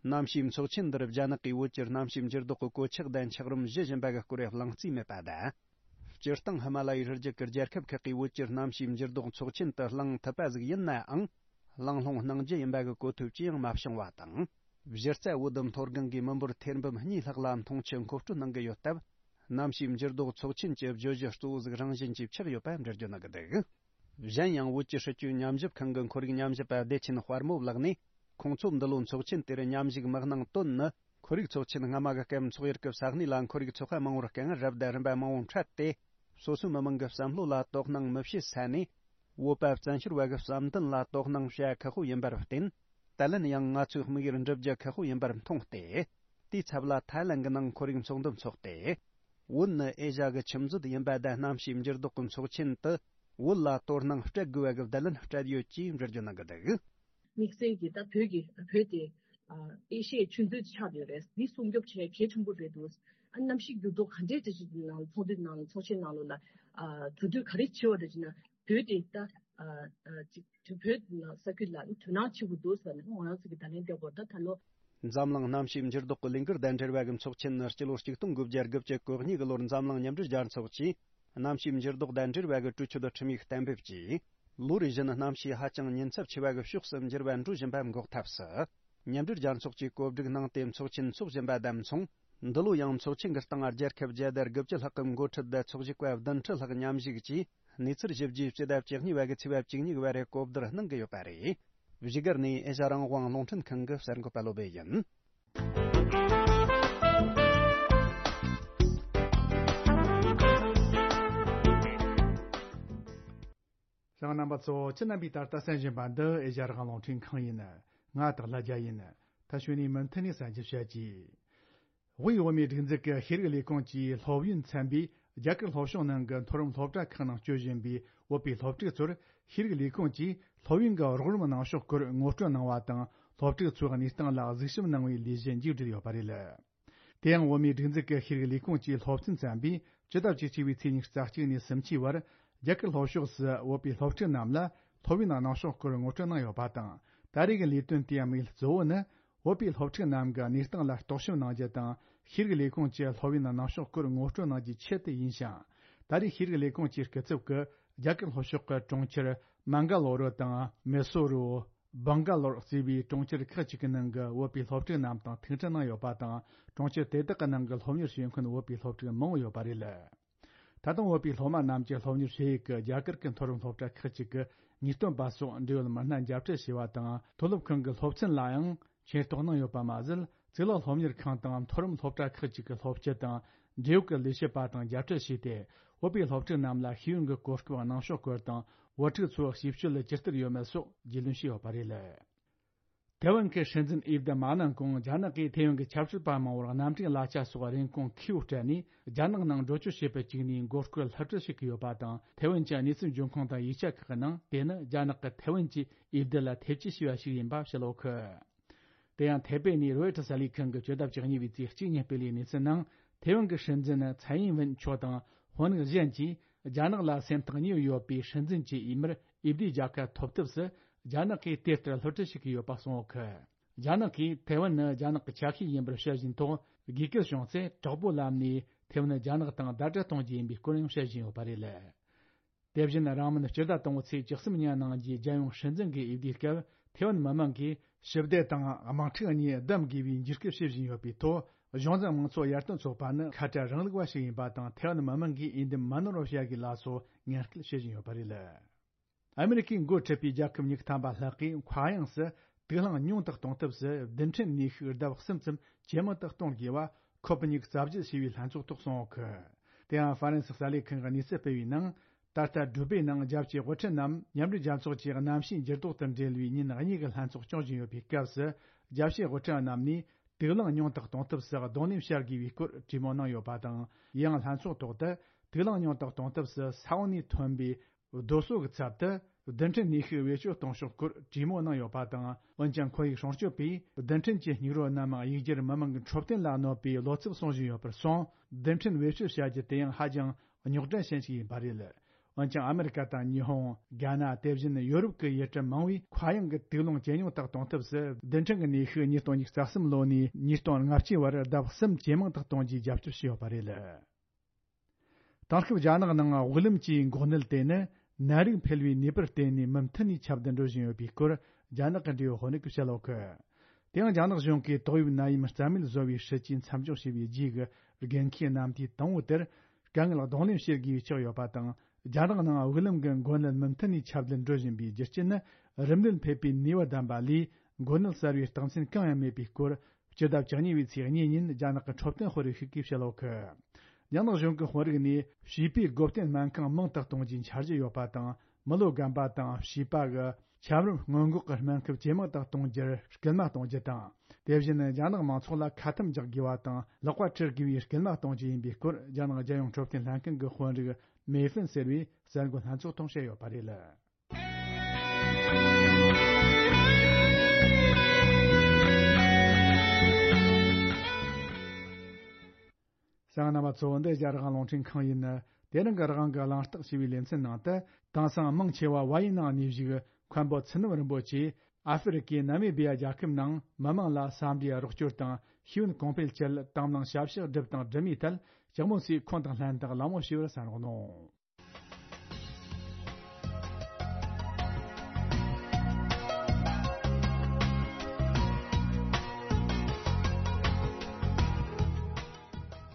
གནམ་གཤིས་ཚོགས་ཆེན་འདིར་རྒྱ་ནག་གིས་བོད་ཀྱི་གནམ་གཤིས་འགྱུར་ལྡོག་གི་གོད་ཆག་དང་འཁྱགས་རོམ་བཞི་བཞིན་པ་གི་སྐོར་གླེང་རྩིས་མེད་པ་དང་། སྤྱིར་བཏང་ཧི་མ་ལ་ཡའི་རི་རྒྱུད་ཀྱི་རྒྱལ་ཁབ་ཁག་གིས་བོད་ཀྱི་གནམ་གཤིས་འགྱུར་ལྡོག་ཚོགས་ཆེན་དུ་གླེང་ཐུབ་པ་ཟིག་ཡིན་ནའང་། གླེང་སློང་གནང་རྒྱུ་ཡིན་པ་གི་གོ་ཐོས་ཅི་ཡང་མ་བྱུང་བ་དང་། གཞི་རྩ་བོད་མཐོ་སྒང་གི་མི་འབོར་ཐེར་འབུམ་གཉིས་ལྷག་ལ་འཐུང་ཆུ་མཁོ་སྤྲོད་གནང་གི་ཡོད་སྟབས། གནམ་གཤིས་འགྱུར་ལྡོག་ཚོགས་ཆེན་གྱི་བརྗོད་གཞི་གཙོ་བོ་ཟིག་རང་བཞིན་གྱིས་ཆགས་ཡོད་པ་འགྲེལ་བརྗོད་གནང་གི་འདུག་གཞན་ཡང་བོད་ཀྱི་སྲིད་བྱུས་ཉམས་ཞིབ་ཁང་གི་ཁོར་ཡུག་ཉམས་ཞིབ་པ་བདེ་ཆེན་དཔལ་མོ་ལགས་ནས། ཁོང་ཚོ་འདི་ལོའི་ཚོགས་ཆེན་དེར་མཉམ་ཞུགས་མི་གནང་དོན་ནི། ཁོར་ཡུག་ཚོགས་ཆེན་སྔ་མ་གི་སྐབས་འཚོགས་ཡུལ་གྱི་ས་གནས་ལ་ཁོར་ཡུག་ཚོགས་པ་མང་བོར་རྐང་རབ་དང་རིམ་པ་མང་བོ་འཕྲད་དེ། སོ་སོའི་མི་མང་གི་བསམ་བློ་ལ་དོ་སྣང་མི་བྱེད་ས་ནས། བོད་པ་བཙན་བྱོལ་བ་གི་བསམ་འདུན་ལ་དོ་སྣང་བྱ་ཁག་པོ་ཡིན་པར་བརྟེན། ད་ལན་ཡང་ང་ཚོའི་དམིགས་ཡུལ་འགྲུབ་རྒྱུ་ཁག་པོ་ཡིན་པར་མཐོང་སྟེ། དེའི་ཚབ་ལ་ཐའི་ལན་གྱི་ནང་ཁོར་ཡུག་ཚོགས་འདུ་འཚོགས་ཏེ། བོད་ནི་ཨེ་ཤ་གི་ཁྱིམ་མཛོད་ཡིན་པ་དང་གནམ་གཤིས་འགྱུར་ལྡོག་གི་ཚོགས་ཆེན་དུ་བོད་ལ་དོ་སྣང་སྤྲད་དགོས་པ་གི་བརྡ་ལན་སྤྲད་ཡོད་ཅེས་འགྲེལ་བརྗོད་གནང་གི་འདུག་དམིགས་བསལ་གྱིས་ད་བོད་ཀྱི་བོད་དེ་ཨེ་ཤི་ཡའི་ཆུ་མཛོད་ཆགས་ཡོད་རེད། འདི་སྲུང་སྐྱོབ་བྱེད་གལ་ཆེན་པོ་རེད་འདུག་ཨ་གནམ་གཤིས་འགྱུར་ལྡོག་ག་འདྲའི་འདྲ་ཞིག་ནང་ཚོགས་འདུའི་ནང་ཚོགས་ཆེན་ནང་ལོགས་ལ་གྲོས་བསྡུར་ག་རེ་བྱས་པ་རེད་ཅེ་ན། བོད་དེ་ད་ཅིག་བོད་ནང་ས་ཁུལ་ལ་དོ་སྣང་བྱེད་དགོས་འདུག་ཟེར་ནས་ང་རང་ཚོ་གི་ད་ལན་བསྟན་པར་ད་ད་ལོ། འཛམ་གླིང་གནམ་གཤིས་འགྱུར་ལྡོག་གི་ལས་འགུལ་དང་འབྲེལ་བ་གི་ཚོགས་ཆེན་ནི་སྤྱི་ལོ་ཆིག་སྟོང་དགུ་བརྒྱ་དགུ་བཅུ་གོ་གཉིས་གི་ལོར་འཛམ་གླིང་མཉམ་འབྲེལ་རྒྱལ་ཚོགས་ཀྱིས། གནམ་གཤིས་འགྱུར་ལྡོག་དང་འབྲེལ་བའི་གི་གྲོས་ཆོད་ཁྲིམས་ཡིག་གཏན་འབེབས་ཀྱིས། ལོ་རེ་བཞིན་གནམ་གཤིས་ཧ་ཅང་ཉེན་ཚབས་ཆེ་བའི་གི་ཕྱོགས་སུ་འགྱུར་བ་འགྲོ་བཞིན་པ་འགོག་ཐབས་སུ། མཉམ་འབྲེལ་རྒྱལ་ཚོགས་ཀྱིས་གོ་སྒྲིག་གནང་སྟེ་ཚོགས་ཆེན་འཚོགས་བཞིན་པ་དང་མཚུངས། འདི་ལོ་ཡང་ཚོགས་ཆེན་གྱི་སྟེང་རྒྱལ་ཁབ་བརྒྱ་དང་དགུ་བཅུ་ལྷག་གི་འགོ་ཁྲིད་དང་ཚོགས་ཞུགས་པ་བདུན་ཁྲི་ལྷག་མཉམ་ཞུགས་ཀྱིས་གནས་ཚུལ་ཞིབ་རྒྱས་སྤྱི་ཟླ་བཅུ་གཉིས་པ་གི་ཚེས་པ་བཅུ་གཉིས་པ་རེ་གོ་བསྡུར་གནང་གི་ཡོད་པ་རེད། བཞུགས་སྒར་ནས་ཨེ་ཤ་རང་དབང་རླུང་འཕྲིན་ཁང་གི་གསར་འགོད་པ་བློ་བྷེ་ཡིན། ཞང་རྣམ་པ་ཚོ་ཁྱེད་རྣམ་པས་ད་ལྟ་གསན་བཞིན་པ་འདི་ཨེ་ཤ་རང་དབང་རླུང་འཕྲིན་ཁང་ཡིན། ང་སྟག་ལྷ་རྒྱལ་ཡིན། ད་ཞུ་ནས་མུ་མཐུད་ནས་གསན་རྒྱུ་བྱེད་ཀྱི། དབུས་བོད་མིའི་སྒྲིག་འཛུགས་ཀྱི་ཤེས་རིག་ལས་ཁུངས་ཀྱི་སློབ་ཡོན་ཚན་པས་རྒྱ་གར་ལྷོ་ཕྱོགས་ནང་གི་མཐོ་རིམ་སློབ་གྲྭ་ཁག་ནང་སྤྱོད་བཞིན་པའི་བོད་པའི་སློབ་ཕྲུག་ཚོར་ཤེས་རིག་ལས་ཁུངས་ཀྱིས་སློབ་ཡོན་གྱི་རོགས་རམ་གནང་ཕྱོགས་སྐོར་ངོ་སྤྲོད་གནང་བ་དང་། སློབ་ཕྲུག་ཚོའི་གནས་སྟངས་ལ་གཟིགས་ཞིབ་གནང་བའི་ལས་གཞི་མཇུག་བསྒྲིལ་ཡོད་པ་རེད། དེ་ཡང་བོད་མིའི་སྒྲིག་འཛུགས་ཀྱི་ཤེས་རིག་ལས་ཁུངས་ཀྱི་སློབ་ཚན་ཚན་པས་ཕྱི་ཟླ་བཅུ་གཅིག་པའི་ཚེས་ཉི་ཤུ་རྩ་གཅིག་ནས་སུམ་ཅུའི་བར་རྒྱ་གར་ལྷོ་ཕྱོགས་སུ་བོད་པའི་སློབ་ཕྲུག་རྣམས་ལ་སློབ་ཡོན་གནང་ཕྱོགས་སྐོར་ངོ་སྤྲོད་གནང་ཡོད་པ་དང་། ད་རེས་ཀྱི་ལས་དོན་དེའི་དམིགས་ཡུལ་གཙོ་བོ་ནི། བོད་པའི་སློབ་ཕྲུག་རྣམས་ཀྱི་གནས་སྟངས་ལ་རྟོག་ཞིབ་གནང་རྒྱུ་དང་། ཤེས་རིག་ལས་ཁུངས་ཀྱི་སློབ་ཡོན་གནང་ཕྱོགས་སྐོར་ངོ་སྤྲོད་གནང་རྒྱུའི་ཆེད་དུ་ཡིན་ཞིང་། ད་རེས་ཤེས་རིག་ལས་ཁུངས་ཀྱི་སྐུ་ཚབ་ཀྱིས་རྒྱ་གར་ལྷོ་ཕྱོགས་ཀྱི་གྲོང་ཁྱེར་མན་ག་ལོ་རུ་དང་མེ་སོ་རུ། སྦང་ག་ལོར་གཙོས་པའི་གྲོང་ཁྱེར་ཁག་ཅིག་གི་ནང་གི་བོད་པའི་སློབ་ཕྲུག་རྣམས་དང་ཐུག་འཕྲད་གནང་ཡོད་པ་དང་། གྲོང་ཁྱེར་དེ་དག་གི་ནང་གི་སློབ་གཉེར་བྱེད་མཁན་བོད་པའི་སློབ་ཕྲུག་མང་བོ་ཡོད་པ་རེད། ད་དུང་བོད་པའི་སློབ་མ་རྣམས་ཀྱི་སློབ་གཉེར་བྱེད་ཡུལ་གྱི་རྒྱ་གར་གྱི་མཐོ་རིམ་སློབ་གྲྭ་ཁག་ཅིག་གི་ངེས་སྟོན་པ་སོགས་འབྲེལ་ཡོད་མི་སྣ་མཇལ་འཕྲད་བྱས་པ་དང་། མཐོ་སློབ་ཁང་གི་སློབ་ཚན་ལའང་མཁྱེན་རྟོགས་གནང་ཡོད་པ་མ་ཟད། གཙུག་ལག་སློབ་གཉེར་ཁང་དང་མཐོ་རིམ་སློབ་གྲྭ་ཁག་ཅིག་གི་སློབ་སྤྱི་དང་། འབྲེལ་ཡོད་ཀྱི་ལས་བྱེད་པ་དང་མཇལ་འཕྲད་བྱས་ཏེ། བོད་པའི་སློབ་ཕྲུག་རྣམས་ལ་ཤེས་ཡོན་གྱི་གོ་སྐབས་གནང་ཕྱོགས་སྐོར་དང་། བོད་ཕྲུག་ཚོའི་ཞིབ་དཔྱོད་ལ་ཇི་ལྟར་ཡོད་མེད་སོགས་རྒྱུས་ལོན་བྱས་ཡོད་པ་རེད། ཐེ་ཝན་གྱི་སྲིད་འཛིན་འོས་བསྡུ་མ་གནང་གོང་། རྒྱ་ནག་གིས་ཐེ་ཝན་གྱི་ཆབ་སྲིད་པ་མང་བོར་རྣམ་འཕྲུལ་གླ་ཆ་སོགས་རིན་གོང་ཁེ་པོ་སྤྲད་ནས། རྒྱ་ནག་ནང་འགྲོ་སྐྱོད་བྱེད་པར་བཅུག་ནས་མགོ་སྐོར་སླུ་བྲིད་བྱེད་ཀྱི་ཡོད་པ་དང་། ཐེ་ཝན་གྱི་གནས་ཚུལ་འབྱུང་ཁུངས་དང་ཡིག་ཆ་ཁག་གི་ནང་། དེ་ནི་རྒྱ་ནག་གིས་ཐེ་ཝན་གྱི་འོས་བསྡུ་ལ་ཐེ་བྱུས་བྱས་པ་ཞིག་ཡིན་པ་བཤད་ཡོད་ཁུལ། དེ་ཡང་ཐེ་པེ་ནས་རོའི་ཊར་གསར་ལས་ཁང་གིས་བཅུ་ཟླ་བཅུ་གཉིས་པའི་ཚེས་གཅིག་ཉིན་སྤེལ་བའི་གནས་ཚུལ་ནང་། ཐེ་ཝན་གྱི་སྲིད་འཛིན་ཚའེ་ཡིན་ཝེན་མཆོག་དང་། དཔོན་རིགས་གཞན་གྱིས་རྒྱ་ནག་ལ་སེམས་ཐག་ཉེ་བོ་ཡོད་པའི་སྲིད་འཛིན་གྱི་འོས་མིར་འོས་བསྡུའི་རྒྱལ་ཁ་ཐོབ་ཐབས་སུ་རྒྱ་ནག་གིས་དེ་ལྟར་སླུ་བྲིད་བྱེད་ཀྱི་ཡོད་པ་གསུངས་ཡོད་ཁུལ། རྒྱ་ནག་གིས་ཐེ་ཝན་ནི་རྒྱ་ནག་གི་ཆ་ཤས་ཡིན་པར་བཤད་བཞིན་ཐོག་དགོས་གལ་བྱུང་ཚེ་དྲག་པོའི་ལམ་ནས་ཐེ་ཝན་རྒྱ་ནག་དང་ཟླ་སྒྲིལ་གཏོང་རྒྱུ་ཡིན་པའི་སྐོར་ཡང་བཤད་བཞིན་ཡོད་པ་རེད། དེ་བཞིན་རིང་མིན་སྤྱི་ཟླ་དང་པོའི་ཚེས་བཅུ་གསུམ་ཉིན་གནང་རྒྱུའི་རྒྱལ་ཡོངས་སྲིད་འཛིན་གྱི་འོས་བསྡུའི་སྐབས། ཐེ་ཝན་མི་མང་གིས་ཞི་བདེ་དང་དམག་འཁྲུག་གཉིས་བདམས་དགོས་པའི་འཇིགས་སྐུལ་བྱེད་བཞིན་ཡོད་པའི་ཐོག་གཞུང་འཛིན་དམངས་གཙོ་ཡར་ཐོན་ཚོགས་པ་ནི་ཁ་བྲལ་རིང་ལུགས་པ་ཞིག་ཡིན་པ་དང་། ཐེ་ཝན་མི་མང་གིས་འོས་འདེམས་མ་ནོར་བར་བྱ་དགོས་ལ་སོགས་ངན་སྐུལ་བྱེད་བཞིན་ཡོད་པ་རེད། ཨ་མེ་རི་ཁས་འགོ་ཁྲིད་པའི་རྒྱལ་ཁབ་ཉི་ཤུ་ཐམ་པ་ལྷག་གིས་མཁའ་དབྱིངས་སུ་དུག་རླངས་ཉུང་དུ་གཏོང་ཐབས་སུ་རྡུལ་ཕྲན་ནུས་ཤུགས་ལྡབ་གསུམ་ཙམ་ཇེ་མང་དུ་གཏོང་དགོས་པ་ཁོ་པེ་ནིག་རྩ་བརྒྱུད་ཞེས་པའི་ལྷན་ཚོགས་ཐོག་གསུངས་ཡོད་གི། དེ་ཡང་ཧྥ་རན་སི་གསར་ལས་ཁང་གིས་གནས་ཚུལ་སྤེལ་བའི་ནང་། ད་ལྟ་ཌུ་བེ་ནང་རྒྱལ་སྤྱིའི་དབུ་ཁྲིད་རྣམས་མཉམ་འབྲེལ་རྒྱལ་ཚོགས་ཀྱི་གནམ་གཤིས་འགྱུར་ལྡོག་དང་འབྲེལ་བའི་ཉིན་གཉིས་ཀྱི་ལྷན་ཚོགས་སྐྱོང་བཞིན་ཡོད་པའི་སྐབས་སུ། རྒྱལ་སྤྱིའི་དབུ་ཁྲིད་རྣམས་ནས་དུག་རླངས་ཉུང་དུ་གཏོང་ཐབས་སུ་གདོང་ལེན་བྱ་དགོས་པའི་སྐོར་གྲོས་མོལ་གནང་ཡོད་པ་དང་། ཡང་ལྷན་ཚོགས་ཐོག་ཏུ་དུག་རླངས་ཉུང་དུ་གཏོང་ཐབས་སུ་ས་འོག་ནས་ཐོན་པའི་རྡོ་སོལ་གྱི་ཚབ་ཏུ་རྡུལ་ཕྲན་ནུས་ཤུགས་བེད་སྤྱོད་གཏོང་ཕྱོགས་སྐོར་གྲོས་མོལ་གནང་ཡོད་པ་དང་། འོན་ཀྱང་ཁོར་ཡུག་སྲུང་སྐྱོབ་པས་རྡུལ་ཕྲན་གྱི་སྙིགས་རོ་རྣམས་གཡུག་རྒྱུར་མི་མང་གི་འཕྲོད་བསྟེན་ལ་གནོད་པའི་བློ་འཚབ་གསུང་བཞིན་ཡོད་པར་སོང་། རྡུལ་ཕྲན་བེད་སྤྱོད་བྱ་རྒྱུ་དེ་ཡང་ཧ་ཅང་རྙོག་དྲ་ཅན་ཞིག་ཡིན་པ་རེད། འོན་ཀྱང་ཨ་མེ་རི་ཀ་དང་ཉི་ཧོང་། རྒྱ་ནག་དེ་བཞིན་ཡོ་རོབ་ཀྱི་ཡུལ་གྲུ་མང་བས་མཁའ་དབྱིངས་ཀྱི་དུག་རླངས་ཇེ་ཉུང་དུ་གཏོང་ཐབས་སུ་རྡུལ་ཕྲན་གྱི་ནུས་ཤུགས་ཉིས་སྟོང་ཉི་ཤུ་རྩ་གསུམ་ལོ་ནས་ཉིས་སྟོང་ལྔ་བཅུའི་བར་ལྡབ་གསུམ་ཇེ་མང་དུ་གཏོང་རྒྱུའི་རྒྱབ་སྐྱོར་བྱས་ཡོད་པ་རེད། དེང་སྐབས་རྒྱ་ནག་ནང་དབུགས་ལམ་གྱི་འགོག་ནད་དེ་ནི་ནད་རིགས་འཕེལ་བའི་ནུས་པར་བརྟེན་ནས་མུ་མཐུད་ནས་ཁྱབ་གདལ་འགྲོ་བཞིན་ཡོད་པའི་སྐོར་རྒྱ་ནག་གི་འབྲེལ་ཡོད་དཔོན་རིགས་ཀྱིས་བཤད་ཡོད་གི། དེ་ཡང་རྒྱ་ནག་གཞུང་གིས་ཏོག་དབྱིབས་ནད་ཡམས་རྩ་མེད་བཟོ་བའི་སྲིད་ཇུས་མཚམས་འཇོག་བྱས་པའི་རྗེས་ཀྱི་འགན་འཁྱེར་གནམ་བསྡུས་དང་པོ་དེར་དཀའ་ངལ་གདོང་ལེན་བྱེད་དགོས་པ་ཆགས་ཡོད་པ་དང་། རྒྱ་ནག་ནང་དབུགས་ལམ་གྱི་འགོག་ནད་མུ་མཐུད་ནས་ཁྱབ་གདལ་འགྲོ་བཞིན་པའི་རྒྱུ་རྐྱེན་ནི། རིམས་ནད་ཕོག་པའི་ནུས་པ་ལྡན་པ་ལས་འགོག་ནད་གསར་བའི་རྟགས་མཚན་གང་ཡང་མེད་པའི་སྐོར། སྤྱི་ཟླ་བཅུ་གཉིས་པའི་ཚེས་གཉིས་ཉིན་རྒྱ་ནག་གི་འཕྲོད་བསྟེན་དཔོན་རིགས་ཤིག་གིས་བཤད་ཡོད་གི། རྒྱ་ནག་གཞུང་གི་དཔོན་རིགས་ནས་བྱིས་པའི་སྒོ་བསྟེན་སྨན་ཁང་མང་དུ་གཏོང་རྒྱུའི་འཆར་གཞི་ཡོད་པ་དང་། མི་ལོ་རྒན་པ་དང་བྱིས་པ་གི་ཆམ་རིམས་སྔོན་འགོག་གི་སྨན་ཁབ་ཇེ་མང་དུ་གཏོང་རྒྱུར་སྐུལ་མ་གཏོང་རྒྱུ་དང་། དེ་བཞིན་རྒྱ་ནག་མང་ཚོགས་ལ་ཁ་ཐུམ་རྒྱག་དགོས་པ་དང་ལག་པ་འཁྲུ་དགོས་པའི་སྐུལ་མ་གཏོང་རྒྱུ་ཡིན་པའི་སྐོར། རྒྱ་ནག་རྒྱལ་ཡོངས་འཕྲོད་བསྟེན་ལྷན་ཁང་གི་དཔོན་རིགས་མེ་ཧྥིན་ཟེར་བས་གསར་འགོད་ལྷན་ཚོགས་ཐོག་བཤད་ཡོད་པ་རེད། གསན་མཁན་རྣམ་པ་ཚོ། འདི་རྒྱ་རིག་དབང་རླུང་འཕྲིན་ཁང་ཡིན། དེ་རིང་གི་རིག་དབང་གི་གླེང་སྟེགས་ཞེས་པའི་ལེ་ཚན་ནང་དུ། དེང་སང་མང་ཆེ་བ་བལ་ཡུལ་ནང་གནས་བཞུགས་མཁན་པོ་ཚུལ་རྣམ་རིན་པོ་ཆེས་ཨ་ཧྥེ་རི་ཀའི་ན་མི་བི་ཡ་རྒྱལ་ཁབ་ནང་མི་མང་ལ་ས་འདིའི་རོགས་སྐྱོར་དང་ཤེས་ཡོན་གོང་འཕེལ་ཆེད་དང་བླངས་ཞབས་ཞུ་བསྒྲུབས་དང་སྒྲུབ་མུས་ཐད་ལྕགས་མོ་སིའི་ཁོང་དང་ལྷན་དུ་གླེང་མོལ་ཞུས་པར་གསན་རོགས་གནང་།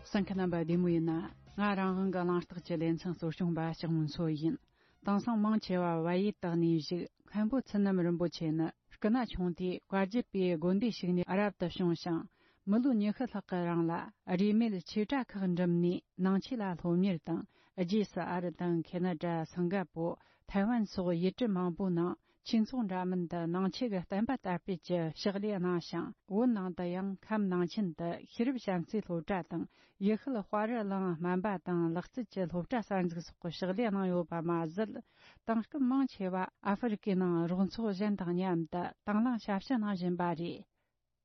གསན་མཁན་རྣམ་པ་བདེ་མོ་ཡིན་ན། ང་རང་དབང་གི་གླེང་སྟེགས་ཀྱི་ལེ་ཚན་གཙོ་སྐྱོང་པ་ལྕགས་མོ་མཚོ་ཡིན། དེང་སང་མང་ཆེ་བ་བལ་ཡུལ་དུ་གནས་བཞུགས་མཁན་པོ་ཚུལ་རྣམ་རིན་པོ་ཆེ་ནི། སྐུ་ན་ཆུང་དུས་བཀའ་བརྒྱུད་པའི་དགོན་སྡེ་ཞིག་ནས་རབ་ཏུ་བྱུང་ཞིང་། མི་ལོ་ཉི་ཤུ་ལྷག་གི་རིང་ལ་རིས་མེད་ཆོས་གྲྭ་ཁག་འགྲིམས་ནས་ནང་ཆོས་ལ་སློབ་གཉེར་དང་། རྗེས་སུ་ཨ་རི་དང་ཁེ་ན་ཌ། སིང་ག་པོ། ཐའེ་ཝན་སོགས་ཡུལ་གྲུ་མང་པོའི་ནང་ཆོས་ཚོགས་འདྲ་མིན་དུ་ནང་ཆོས་ཀྱི་བསྟན་པ་དར་སྤེལ་གྱི་ཕྱག་ལས་གནང་ཞིང་། བོད་ནང་དུ་ཡང་ཁམས་ནང་ཆེན་དུ་ཤེས་རབ་བྱམས་བརྩེའི་སློབ་གྲྭ་དང་། ཡུལ་ཤུལ་དཔའ་རི་གླིང་སྨན་པ་དང་ལག་རྩལ་གྱི་སློབ་གྲྭ་གསར་འཛུགས་སོགས་ཀྱི་ཕྱག་ལས་གནང་ཡོད་པ་མ་ཟད། དེང་སྐབས་མང་ཆེ་བ་ཨ་ཧྥེ་རི་ཀའི་ནང་རོགས་ཚོགས་གཞན་དང་མཉམ་དུ་དང་བླངས་ཞབས་ཞུ་གནང་བཞིན་པ་རེད།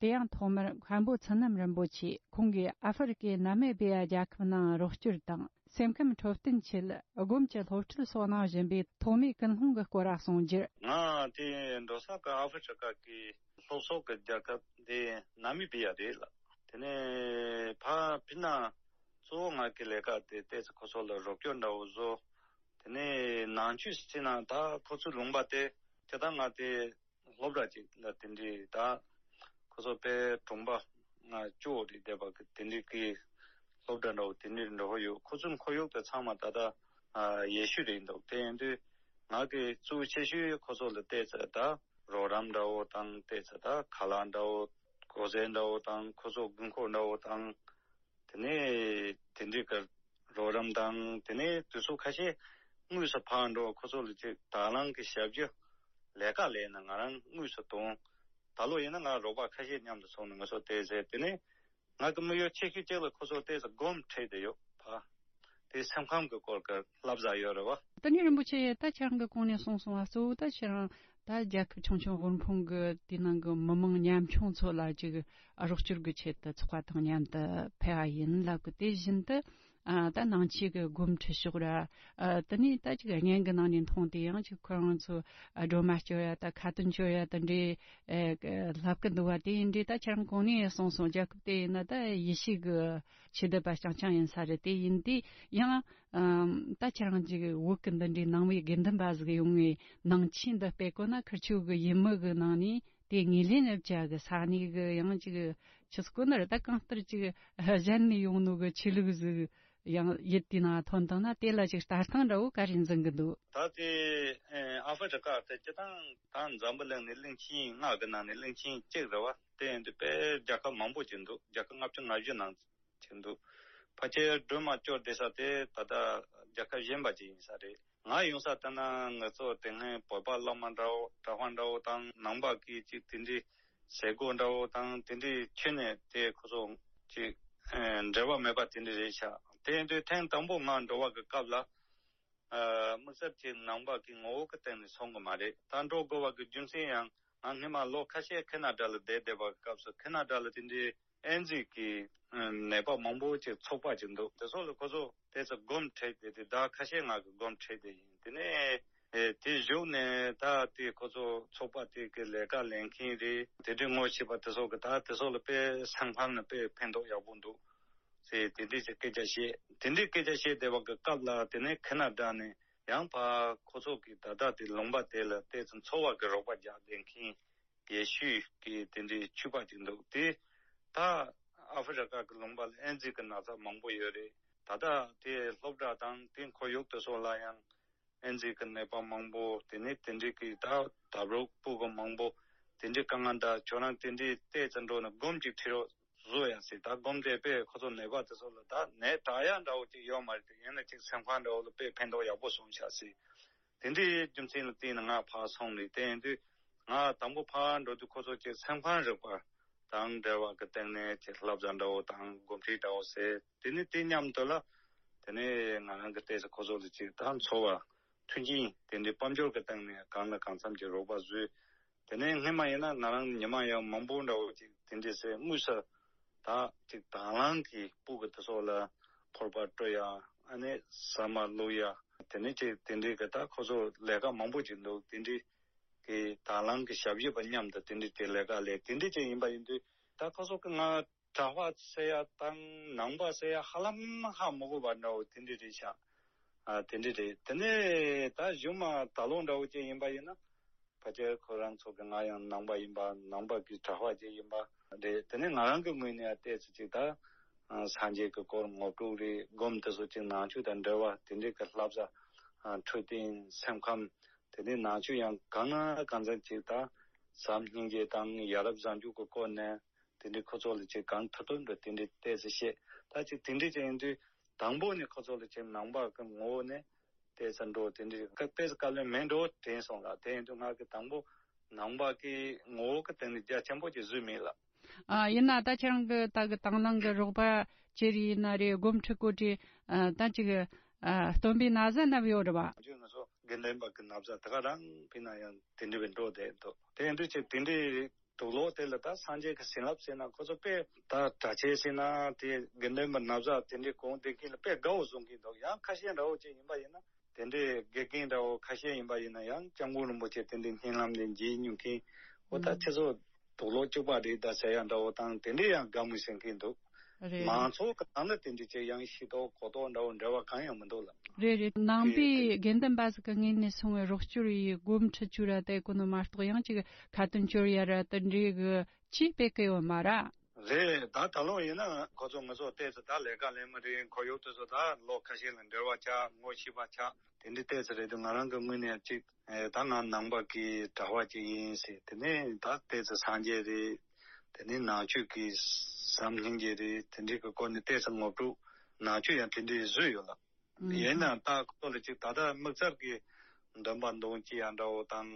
དེ་ཡང་ཐོག་མར་མཁན་པོ་ཚུལ་རྣམ་རིན་པོ་ཆེས་ཁོང་གིས་ཨ་ཧྥེ་རི་ཀའི་ན་མི་བི་ཡ་རྒྱལ་ཁབ་ནང་རོགས་སྐྱོར་དང་སེམས་ཁམས་འཕྲོད་བསྟེན་ཆེད་སྒོམ་གྱི་སློབ་ཁྲིད་སོགས་གནང་བཞིན་པའི་ཐོག་མའི་ཀུན་སློང་གི་སྐོར་གསུངས་རྒྱུར། ང་དེ་འགྲོ་ས་གི་ཨ་ཧྥེ་རི་ཀ་གི་ལྷོ་ཕྱོགས་ཀྱི་རྒྱལ་ཁབ་དེ་ན་མི་བི་ཡ་རེད་ལ། དེ་ནས་ཕ་ཕི་ན་གཙོ་བོ་ང་གི་ལས་ཀ་དེ་ཏོག་ཙམ་ཁོ་ཚོ་ལ་རོགས་སྐྱོར་འདྲ་བོ་བཟོ། དེ་ནས་ནང་ཆོས་ཟེར་ན་ད་ཁོ་ཚོའི་ལུང་པ་དེ་དེ་ད་ང་དེ་སློབ་གྲྭ་ཅིག་ལ་དེ་འདྲའི་ད་ཁོ་ཚོ་དཔེ་གྲོང་པ་ང་ཅོ་རེད་བསྡད་པ་གི་དེ་འདྲའི་གི་སློབ་གྲྭ་འདྲ་བོ་དེ་འདྲའི་འགྲོ་གི་ཡོད། ཁོ་ཚོའི་ཁོར་ཡུག་དེ་ཚང་མ་ད་ད་ཡེ་ཤུ་རེད་འདུག་དེ་ཡིན་དུས་ང་གི་གཙོ་བོ་ཆེ་ཤོས་ཁོ་ཚོ་ལ་བལྟས་ཚེ་ད་རོགས་རམ་འདྲ་བོ་དང་བལྟས་ཚེ་ད་ཁ་ལག་འདྲ་བོ་གོས་ཟས་འདྲ་བོ་དང་ཁོ་ཚོ་དགོས་མཁོ་འདྲ་བོ་དང་། དེ་ནས་དེ་འདྲའི་གི་རོགས་རམ་དང་དེ་ནས་དུས་ཚོད་ཁ་ཤས་དངོས་སུ་ཕར་འགྲོ་ཁོ་ཚོ་ལ་ཅིག་དང་བླངས་ཀྱི་ཞབས་ཞུ་ལས་ཀ་ལས་ན་ང་རང་དངོས་སུ་གཏོང་། ད་ལོ་ཡིན་ན་ང་རོགས་པ་ཁ་ཤས་མཉམ་དུ་ཚོགས་ནས་ང་ཚོ་བལྟས་ཚེ་དེ་ནས་ང་གི་དམིགས་ཡུལ་ཆེ་ཤོས་གཅིག་ལ་ཁོ་ཚོ་བལྟས་ཚེ་སྒོམ་ཁྲིད་དེ་ཡོད་ཕ། དེ་སེམས་ཁམས་ཀྱི་སྐོར་གྱི་བསླབ་བྱ་ཡོད་རེད་བ། ད་ནི་རིན་པོ་ཆེ་ད་ཁྱེད་རང་གི་གོང་ནས་གསུངས་སོང་བ་གཙོ་བོ་ད་ཁྱེད་རང་ད་རྒྱལ་ཁབ་ཆུང་ཆུང་དབུལ་ཕོངས་གི་དེ་ནང་གི་མི་མང་ཉམ་ཆུང་ཚོ་ལ་ཅིག་རོགས་སྐྱོར་གི་ཆེད་དུ་ཚོགས་པ་དང་མཉམ་དུ་ཕེབས་པ་ཡིན་ལབ་གི། དེ་བཞིན་དུ་ཨ་ད་ནང་ཆོས་གི་སྒོམ་ཁྲིད་ཕྱོགས་ར་ཨ་དེ་ནས་ད་ཅིག་བརྙན་གི་ནང་ནས་མཐོང་དེ་ཡང་ཅིག་ཁོ་རང་ཚོ་ཨ་སྒྲོལ་མ་སྐྱོར་ཡ་ད་ཁ་ཏོན་སྐྱོར་ཡ་ད་འདྲའི་ཨེ་ལབ་གི་འདུག་བ། དེ་ཡིན་དུས་ད་ཁྱེད་རང་གོང་ནས་གསུངས་སོང་རྒྱལ་ཁབ་དེ་ཡིན་ན་ད་ཡེ་ཤུ་གི་ཆོས་དད་པ་རྐྱང་རྐྱང་ཡིན་ས་རེད། དེ་ཡིན་དུས་ཡང་ཨམ་ད་ཁྱེད་རང་ཅིག་བོད་ཀྱི་འདི་འདྲའི་ནང་པའི་དགེ་འདུན་པ་ཟིག་ཡོང་ངས་ནང་ཆོས་འདི་སྤེལ་དགོས་ན་ཁིར་ཆོ་གི་ཡུལ་མི་གི་ནང་ནས་དེ་ངོས་ལེན་རེ་བྱ་གི། ས་གནས་གི་ཡང་ཅིག་ཆི་ཟིག་གོ་ནི་རེད། ད་གང་ལྟར་ཅིག་གཞན་ནས་ཡོང་ནོ་གི་ཆོས་ལུགས་ཟིག་ ཡང་ཡིད་དེའི་ནང་ཐོན་བཏང་ན། དེ་ལ་ཅིག་ལྟ་སྟངས་འདྲ་བོ་ག་རེ་འཛིན་གི་འདུག་ད་དེ་ཨ་ཧྥེ་རི་ཀ་དེ་སྤྱིར་བཏང་ད་འཛམ་བུ་གླིང་ནས་གླིང་ཆེན་ལྔ་གི་ནང་ནས་གླིང་ཆེན་གཅིག་རེད་བ། དེ་ཡིན་དུས་དཔེ་རྒྱལ་ཁབ་མང་པོ་ཅིག་འདུག་རྒྱལ་ཁབ་ལྔ་བཅུ་ང་བཞི་ནང་ཅིག་འདུག་ཕལ་ཆེར་སྒྲོལ་མ་སྐྱོར་བསྡད་ས་དེ་ད་ལྟ་རྒྱལ་ཁབ་གཞན་པ་ཅིག་ཡིན་ས་རེད། ང་ཡོང་ས་ལྟ་ན་ང་ཚོ་དེ་སྔའི་བོད་པ་བླ་མ་འདྲ་བོ་གྲྭ་པ་འདྲ་བོ་དང་ནང་པ་གི་ཅིག་དེ་འདྲའི་ཟས་གོ་འདྲ་བོ་དང་དེ་འདྲའི་ཁྱོན་ནས་དེ་ཁོ་ཚོ་ཅིག་ཨ་འབྲེལ་བ་མེད་པ་དེ་འདྲ་རེད་ཤག་དེ་ཡིན་དུས་ཐེངས་དང་པོ་ང་འགྲོ་བ་གི་སྐབས་ལ་ཨ་དམིགས་བསལ་གྱི་ནང་པ་གི་ངོ་བོ་གི་སྟེང་ནས་སོང་གི་མ་རེད། ད་འགྲོ་དགོས་པ་གི་རྒྱུ་མཚན་ཡང་ང་སྔོན་མ་ལོ་ཁ་ཤས་ཁེ་ན་ཌ་ལ་བསྡད་བསྡད་པ་གི་སྐབས་སུ་ཁེ་ན་ཌ་ལ་དེ་འདྲའི་ཨེ་ཛི་གི་ཨ་ནད་པ་མང་པོ་ཅིག་ཚོགས་པ་ཅིག་འདུག་དེ་ཚོ་ལ་ཁོ་ཚོ་དེ་ཚོ་སྒོམ་ཁྲིད་དེ་དེ་ཟླ་ཁ་ཤས་ང་གི་སྒོམ་ཁྲིད་དེ་ཡིན། དེ་ནས་ཨེ་དེ་བཞུགས་ནས་ད་དེ་ཁོ་ཚོ་ཚོགས་པ་དེ་གི་ལས་ཀ་ལས་མཁན་རེད། དེ་འདྲའི་ངོ་ཤེས་པ་དེ་ཚོ་གི་ད་དེ་ཚོ་ལ་དཔེ་སེམས་ཁམས་ལ་དཔེ་ཕན་ཐོགས་ཡག་པོ་འདུག་ཟེར་དེ་འདྲའི་ཅིག་སྐད་ཆ་བཤད། དེ་འདྲའི་སྐད་ཆ་བཤད་བསྡད་པ་གི་སྐབས་ལ་དེ་ནས་ཁེ་ན་ཌ་ནས་ཡང་ཕར་ཁོ་ཚོ་གི་ད་ལྟ་དེ་ལུང་པ་དེ་ལ་ཏོག་ཙམ་འཚོ་བ་གི་རོགས་པ་རྒྱག་བསྡད་མཁན་ཡེ་ཤུ་གི་དེ་འདྲའི་ཆོས་པ་ཅིག་འདུག་དེ་ད་ཨ་ཧྥེ་རི་ཀ་གི་ལུང་པ་ལ་ཨེ་ཛི་གི་ན་ཚ་མང་པོ་ཡོད་རེད། ད་ལྟ་དེ་སློབ་གྲྭ་དང་དེ་ཁོར་ཡུག་དེ་ཚོ་ལ་ཡང་ཨེ་ཛི་གི་ནད་པ་མང་པོ། དེ་ནས་དེ་འདྲའི་གི་ད་ད་རུང་སྤུ་གུ་མང་པོ་དེ་འདྲའི་དཀའ་ངལ་འདྲ། ཁྱོད་རང་དེ་འདྲའི་ཏོག་ཙམ་འགྲོ་ནས་སྒོམ་ཅིག་ཁྲིད་རོགས་བཟོ་ཡ་ཟེར། ད་སྒོམ་དེ་དཔེ་ཁོ་ཚོ་ནད་པ་དེ་ཚོ་ལ་ད་ནད་དྲག་ཡ་འདྲ་བོ་ཅིག་ཡོད་མ་རེད་དེ། ཡིན་ན་ཅིག་སེམས་ཁམས་འདྲ་བོ་ལ་དཔེ་ཕན་ཐོགས་ཡག་པོ་སོང་ཤག་ཟེར། དེ་འདྲའི་རྒྱུ་མཚན་ལ་བརྟེན་ནས་ང་ཕར་སོང་ནས་དེ་ཡིན་དུས་ང་དང་པོ་ཕར་འགྲོ་དུས་ཁོ་ཚོ་ཅིག་སེམས་ཁམས་རིག་པ་དང་འབྲེལ་བ་གི་སྟེང་ནས་ཅིག་བསླབ་བྱ་འདྲ་བོ་དང་སྒོམ་ཁྲིད་འདྲ་བོ་ཟེར། དེ་ནས་དེ་མཉམ་དུ་ལ་དེ་ནས་ང་རང་གི་ཏོག་ཙམ་ཁོ་ཚོ་ལ་ཅིག་ད་འཚོ་བ་མཐུན་རྐྱེན་དེ་འདྲའི་དཔལ་འབྱོར་གི་སྟེང་ནས་གང་ལ་གང་འཚམ་གྱི་རོགས་པ་བཟོས། དེ་ནས་སྔོན་མ་ཡིན་ན་ང་རང་ཉི་མ་ཡང་མང་པོ་འདྲ་བོ་ཅིག་དེ་འདྲའི་སེ་དངོས་སུ་ད་ཅིག་དང་བླངས་ཀྱིས་སྤུ་གུ་དེ་ཚོ་ལ་ཕོར་པ་སྤྲོད་ཡ། ཨ་ནི་ཟ་མ་བླུགས་ཡ། དེ་ནས་ཅིག་དེ་འདྲའི་གི་ད་ཁོ་ཚོ་ལས་ཀ་མང་པོ་ཅིག་འདུག་དེ་འདྲའི་གི་དང་བླངས་ཀྱི་ཞབས་ཕྱི་པ་མཉམ་དུ་དེ་འདྲའི་ཅིག་ལས་ཀ་ལས་དེ་འདྲའི་ཅིག་ཡིན་པ་ཡིན་དུས་ད་ཁོ་ཚོ་གི་ང་གྲྭ་པ་ཟེར་ཡ་དང་ནང་པ་ཟེར་ཡ་ཧ་ལམ་ཧ་མི་གོ་བ་འདྲ་བོ་དེ་འདྲ་རེད་ཤག་ཨ་དེ་འདྲ་རེད། དེ་ནས་ད་གཞུག་མ་ད་ལོ་འདྲ་བོ་ཅིག་ཡིན་པ་ཡིན་ན་ཕལ་ཆེར་ཁོ་རང་ཚོ་གི་ང་ཡང་ནང་པ་ཡིན་པ་ནང་པ་གི་གྲྭ་པ་ཅིག་ཡིན་པ་རེད། དེ་ནས་ང་རང་གི་ངོས་ནས་ཡང་ཏོག་ཙམ་ཅིག་ད་ཨ་སངས་རྒྱས་ཀྱི་སྐོར་ངོ་སྤྲོད་རེད། སྒོམ་དེ་ཚོ་ཅིག་ནང་ཆོས་དང་འབྲེལ་བ་དེ་འདྲའི་གི་བསླབ་བྱ་ཨ་འཕྲོད་བསྟེན་སེམས་ཁམས་དེ་ནས་ནང་ཆོས་ཡང་གང་ན་གང་འཚམ་ཅིག་ད་བྱམས་སྙིང་རྗེ་དང་ཡ་རབས་བཟང་སྤྱོད་ཀྱི་སྐོར་ནས། དེ་འདྲའི་ཁོ་ཚོ་ལ་ཅིག་གང་ཐུབ་ཐུབ་འགྲོ་དེ་འདྲའི་ཏོག་ཙམ་བཤད། ད་ཅིག་དེ་འདྲའི་ཅིག་ཡིན་དུས་དང་པོ་ནས་ཁོ་ཚོ་ལ་ཅིག་ནང་པ་གི་ངོ་བོ་ནས་ཏོག་ཙམ་འགྲོ་དེ་འདྲའི་ཀ་ཏོག་ཙམ་བཀའ་བློན་མེད་འགྲོ་དྲན་སོང་ལ། དེ་ཡིན་དུས་ང་གི་དང་པོ་ནང་པ་གི་ངོ་བོ་གི་སྟེང་ནས་རྒྱ་ཆེན་པོ་ཅིག་བཟོས་མེད་ལ། ཨ་ཡིན་ན་ད་ཁྱེད་རང་གི་ད་གི་དང་བླངས་གི་རོགས་པ་ཅི་རེད་ཡིན་ན་རེད། སྒོམ་ཁྲིད་གོ་དྲི་ཨ་ད་ཅིག་ཨ་སྟོན་པའི་ན་བཟའ་བསྣམས་ཡོད་རེད་བ། ང་ཚོ་དགེ་འདུན་པ་གི་ན་བཟའ་དེ་ག་རང་ཕུད་ན་ཡང་དེ་འདྲའི་བས་འགྲོ་བསྡད་འདུག་དེ་ཡིན་དུས་ཅིག་དེ་འདྲའི། དུག་ལོག་དེ་ལ་ད་སངས་རྒྱས་ཀྱི་བྱིན་རླབས་ཟེར་ན་ཁོ་ཚོ་དཔེ་ད་གྲྭ་ཆས་ཟེར་ན་དེ་དགེ་འདུན་པ་ན་བཟའ་དེ་འདྲའི་གོན་བསྡད་མཁན་ལ་དཔེ་དགའ་བོ་བཟོ་མཁན་འདུག་ཡང་ཁ་ཤས་འདྲ་བོ་ཅིག་ཡིན་པ་ཡིན་ན་དེ་འདྲའི་དགེ་རྒན་འདྲ་བོ་ཁ་ཤས་ཡིན་པ་ཡིན་ན་ཡང་སྐྱབས་མགོན་རིན་པོ་ཆེ་དེ་འདྲའི་བརྙན་ལམ་ལས་མཇལ་མྱོང་མཁན་འོ་ད་ཁྱེད་ཚོ་དུག་ལོག་གཅིག་པ་རེད་ད་ཟེར་ཡ་འདྲ་བོ་དང་དེ་འདྲའི་ཡང་དགའ་མོས་བྱེད་མཁན་འདུག་རེད། མང་ཚོགས་ཀྱི་ནང་ལ་དེ་འདྲའི་ཅིག་ཡང་ཤེས་རྟོགས་གོ་རྟོགས་འདྲ་བོ་འབྲེལ་བ་གང་ཡང་མི་འདུག་ལ། རེད་རེད། ནང་པའི་དགེ་འདུན་པ་ཟིག་གི་ངོས་ནས་སོང་བའི་རོགས་སྐྱོར་ཡི་སྒོམ་ཁྲིད་བཅུག་ར་དེ་གོ་ནོ་མ་གཏོགས་ཡང་ཅིག་ཁ་ཏོན་བཅོལ་ཡ་ར་དེ་འདྲའི་གི་ཅིག་སྤེལ་གི་ཡོད་མ་ར། རེད། ད་ད་ལོ་ཡིན་ན་ཁོ་ཚོ་ང་ཚོ་ཏོག་ཙམ་ད་ལས་ཀ་ལས་མི་རེད། ཁོར་ཡུག་དེ་ཚོ་ད་ལོ་ཁ་ཤས་ལ་འབྲེལ་བ་ཆགས་ངོ་ཤེས་པ་ཆགས་དེ་འདྲའི་ཏོག་ཙམ་རེད་འདུག་ང་རང་གི་ངོས་ནས་ཅིག་ཨེ་ད་ང་ནང་པ་གི་གྲྭ་པ་ཅིག་ཡིན་ཟེར། དེ་ནས་ད་ཏོག་ཙམ་སངས་རྒྱས་རེད། དེ་ནས་ནང་ཆོས་ཀྱི་བྱམས་སྙིང་རྗེ་རེད། དེ་འདྲའི་གི་སྐོར་ནས་ཏོག་ཙམ་ངོ་སྤྲོད་ནང་ཆོས་ཡང་དེ་འདྲའི་བཟོས་ཡོད་ལ། ཨུམ། ཡིན་ནའང་ད་ཁོ་ཚོ་ལ་ཅིག་ད་ལྟ་དམིགས་བསལ་གྱི་འདོན་པ་འདོན་སྤྱི་ཡང་འདྲ་བོ་དང་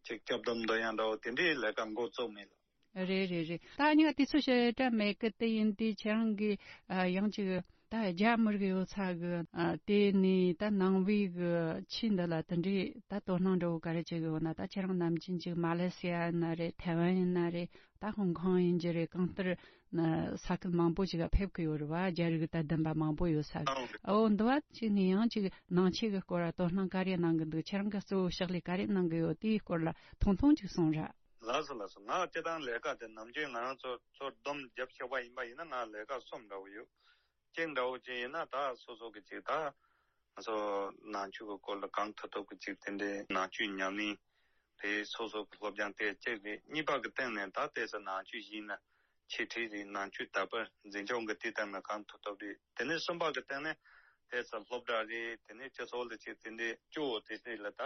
ཅིག་སྐྱབས་སྡོམ་འདོན་ཡང་འདྲ་བོ་དེ་འདྲའི་ལས་ཀ་འགོ་བཙུགས་མེད་ལ། རེད་རེད་རེད། ད་ཉི་མ་དུས་ཚོད་ཞེ་དྲག་མེད་གི། དེ་ཡིན་དུས་ཁྱེད་རང་གིས་ཨ་ཡང་ཅིག་ད་རྒྱ་མི་རིགས་ཡོད་ས་གི་ཨ་དེ་ནས་ད་ནང་པའི་གི་ཆོས་འདི་ལ་དེ་འདྲའི་ད་དོ་སྣང་འདྲ་བོ་ག་རེ་བྱེད་གི་ཡོད་ན། ད་ཁྱེད་རང་ནམ་རྒྱུན་ཅིག་མ་ལེ་སི་ཡ་ཡིན་ན་རེད། ཐའེ་ཝན་ཡིན་ན་རེད། ད་ཧོང་ཀོང་ཡིན་གྱི་རེད། གང་ལྟར་ན་ས་ཁུལ་མང་པོ་ཅིག་ག་ཕེབས་གི་ཡོད་རེད་བ། རྒྱ་རིགས་ད་བདུན་པ་མང་པོ་ཡོད་ས་གི། ཨོ་འདི་བ་ཅིག་ནས་ཡང་ཅིག་ནང་ཆོས་གི་སྐོར་ལ་དོ་སྣང་ག་རེ་གནང་གི་འདུག་ཁྱེད་རང་གི་གཙོ་བོ་ཕྱག་ལས་ག་རེ་གནང་གི་ཡོད། དེའི་སྐོར་ལ་ཐུང་ཐུང་ཅིག་གསུངས་ར། ལགས་སོ་ལགས་སོ། ང་སྤྱིར་བཏང་ལས་ཀ་དེ་ནམ་རྒྱུན་ང་རང་ཚོ་ཚོ་སྡོམ་རྒྱབ་ཤེས་པ་ཡིན་པ་ཡིན་ན་ང་ལས་ཀ་གསུམ་འདྲ་བོ་ཡོད། གཅིག་འདྲ་བོ་ཅིག་ཡིན་ན་ད་སོ་སོ་གི་ཅིག་ད་ང་ཚོ་ནང་ཆོས་ཀྱི་སྐོར་ལ་གང་ཐུབ་ཐུབ་ཀྱི་ཅིག་དེ་འདྲའི་ནང་ཆོས་ཉམས་ལེན་རེད། སོ་སོ་གི་སློབ་སྦྱོང་དེ་གཅིག་རེད། གཉིས་པ་གི་སྟེང་ནས་ད་ལྟའི་ས་ནང་ཆོས་ཡིན་ན་ འཆད་ཁྲིད་རེད། ནང་ཆོས་དར་སྤེལ་འཛིན་སྐྱོང་གི་དེ་ལྟར་ན་གང་ཐུབ་ཐུབ་རེད། དེ་ནས་གསུམ་པ་གི་སྟེང་ནས་དེ་ཚོ་སློབ་གྲྭ་རེད། དེ་ནས་སྤྱི་ཚོགས་ལ་ཅིག་དེ་འདྲའི་སྐྱོ་བོ་དེ་འདྲ་ལ་ད་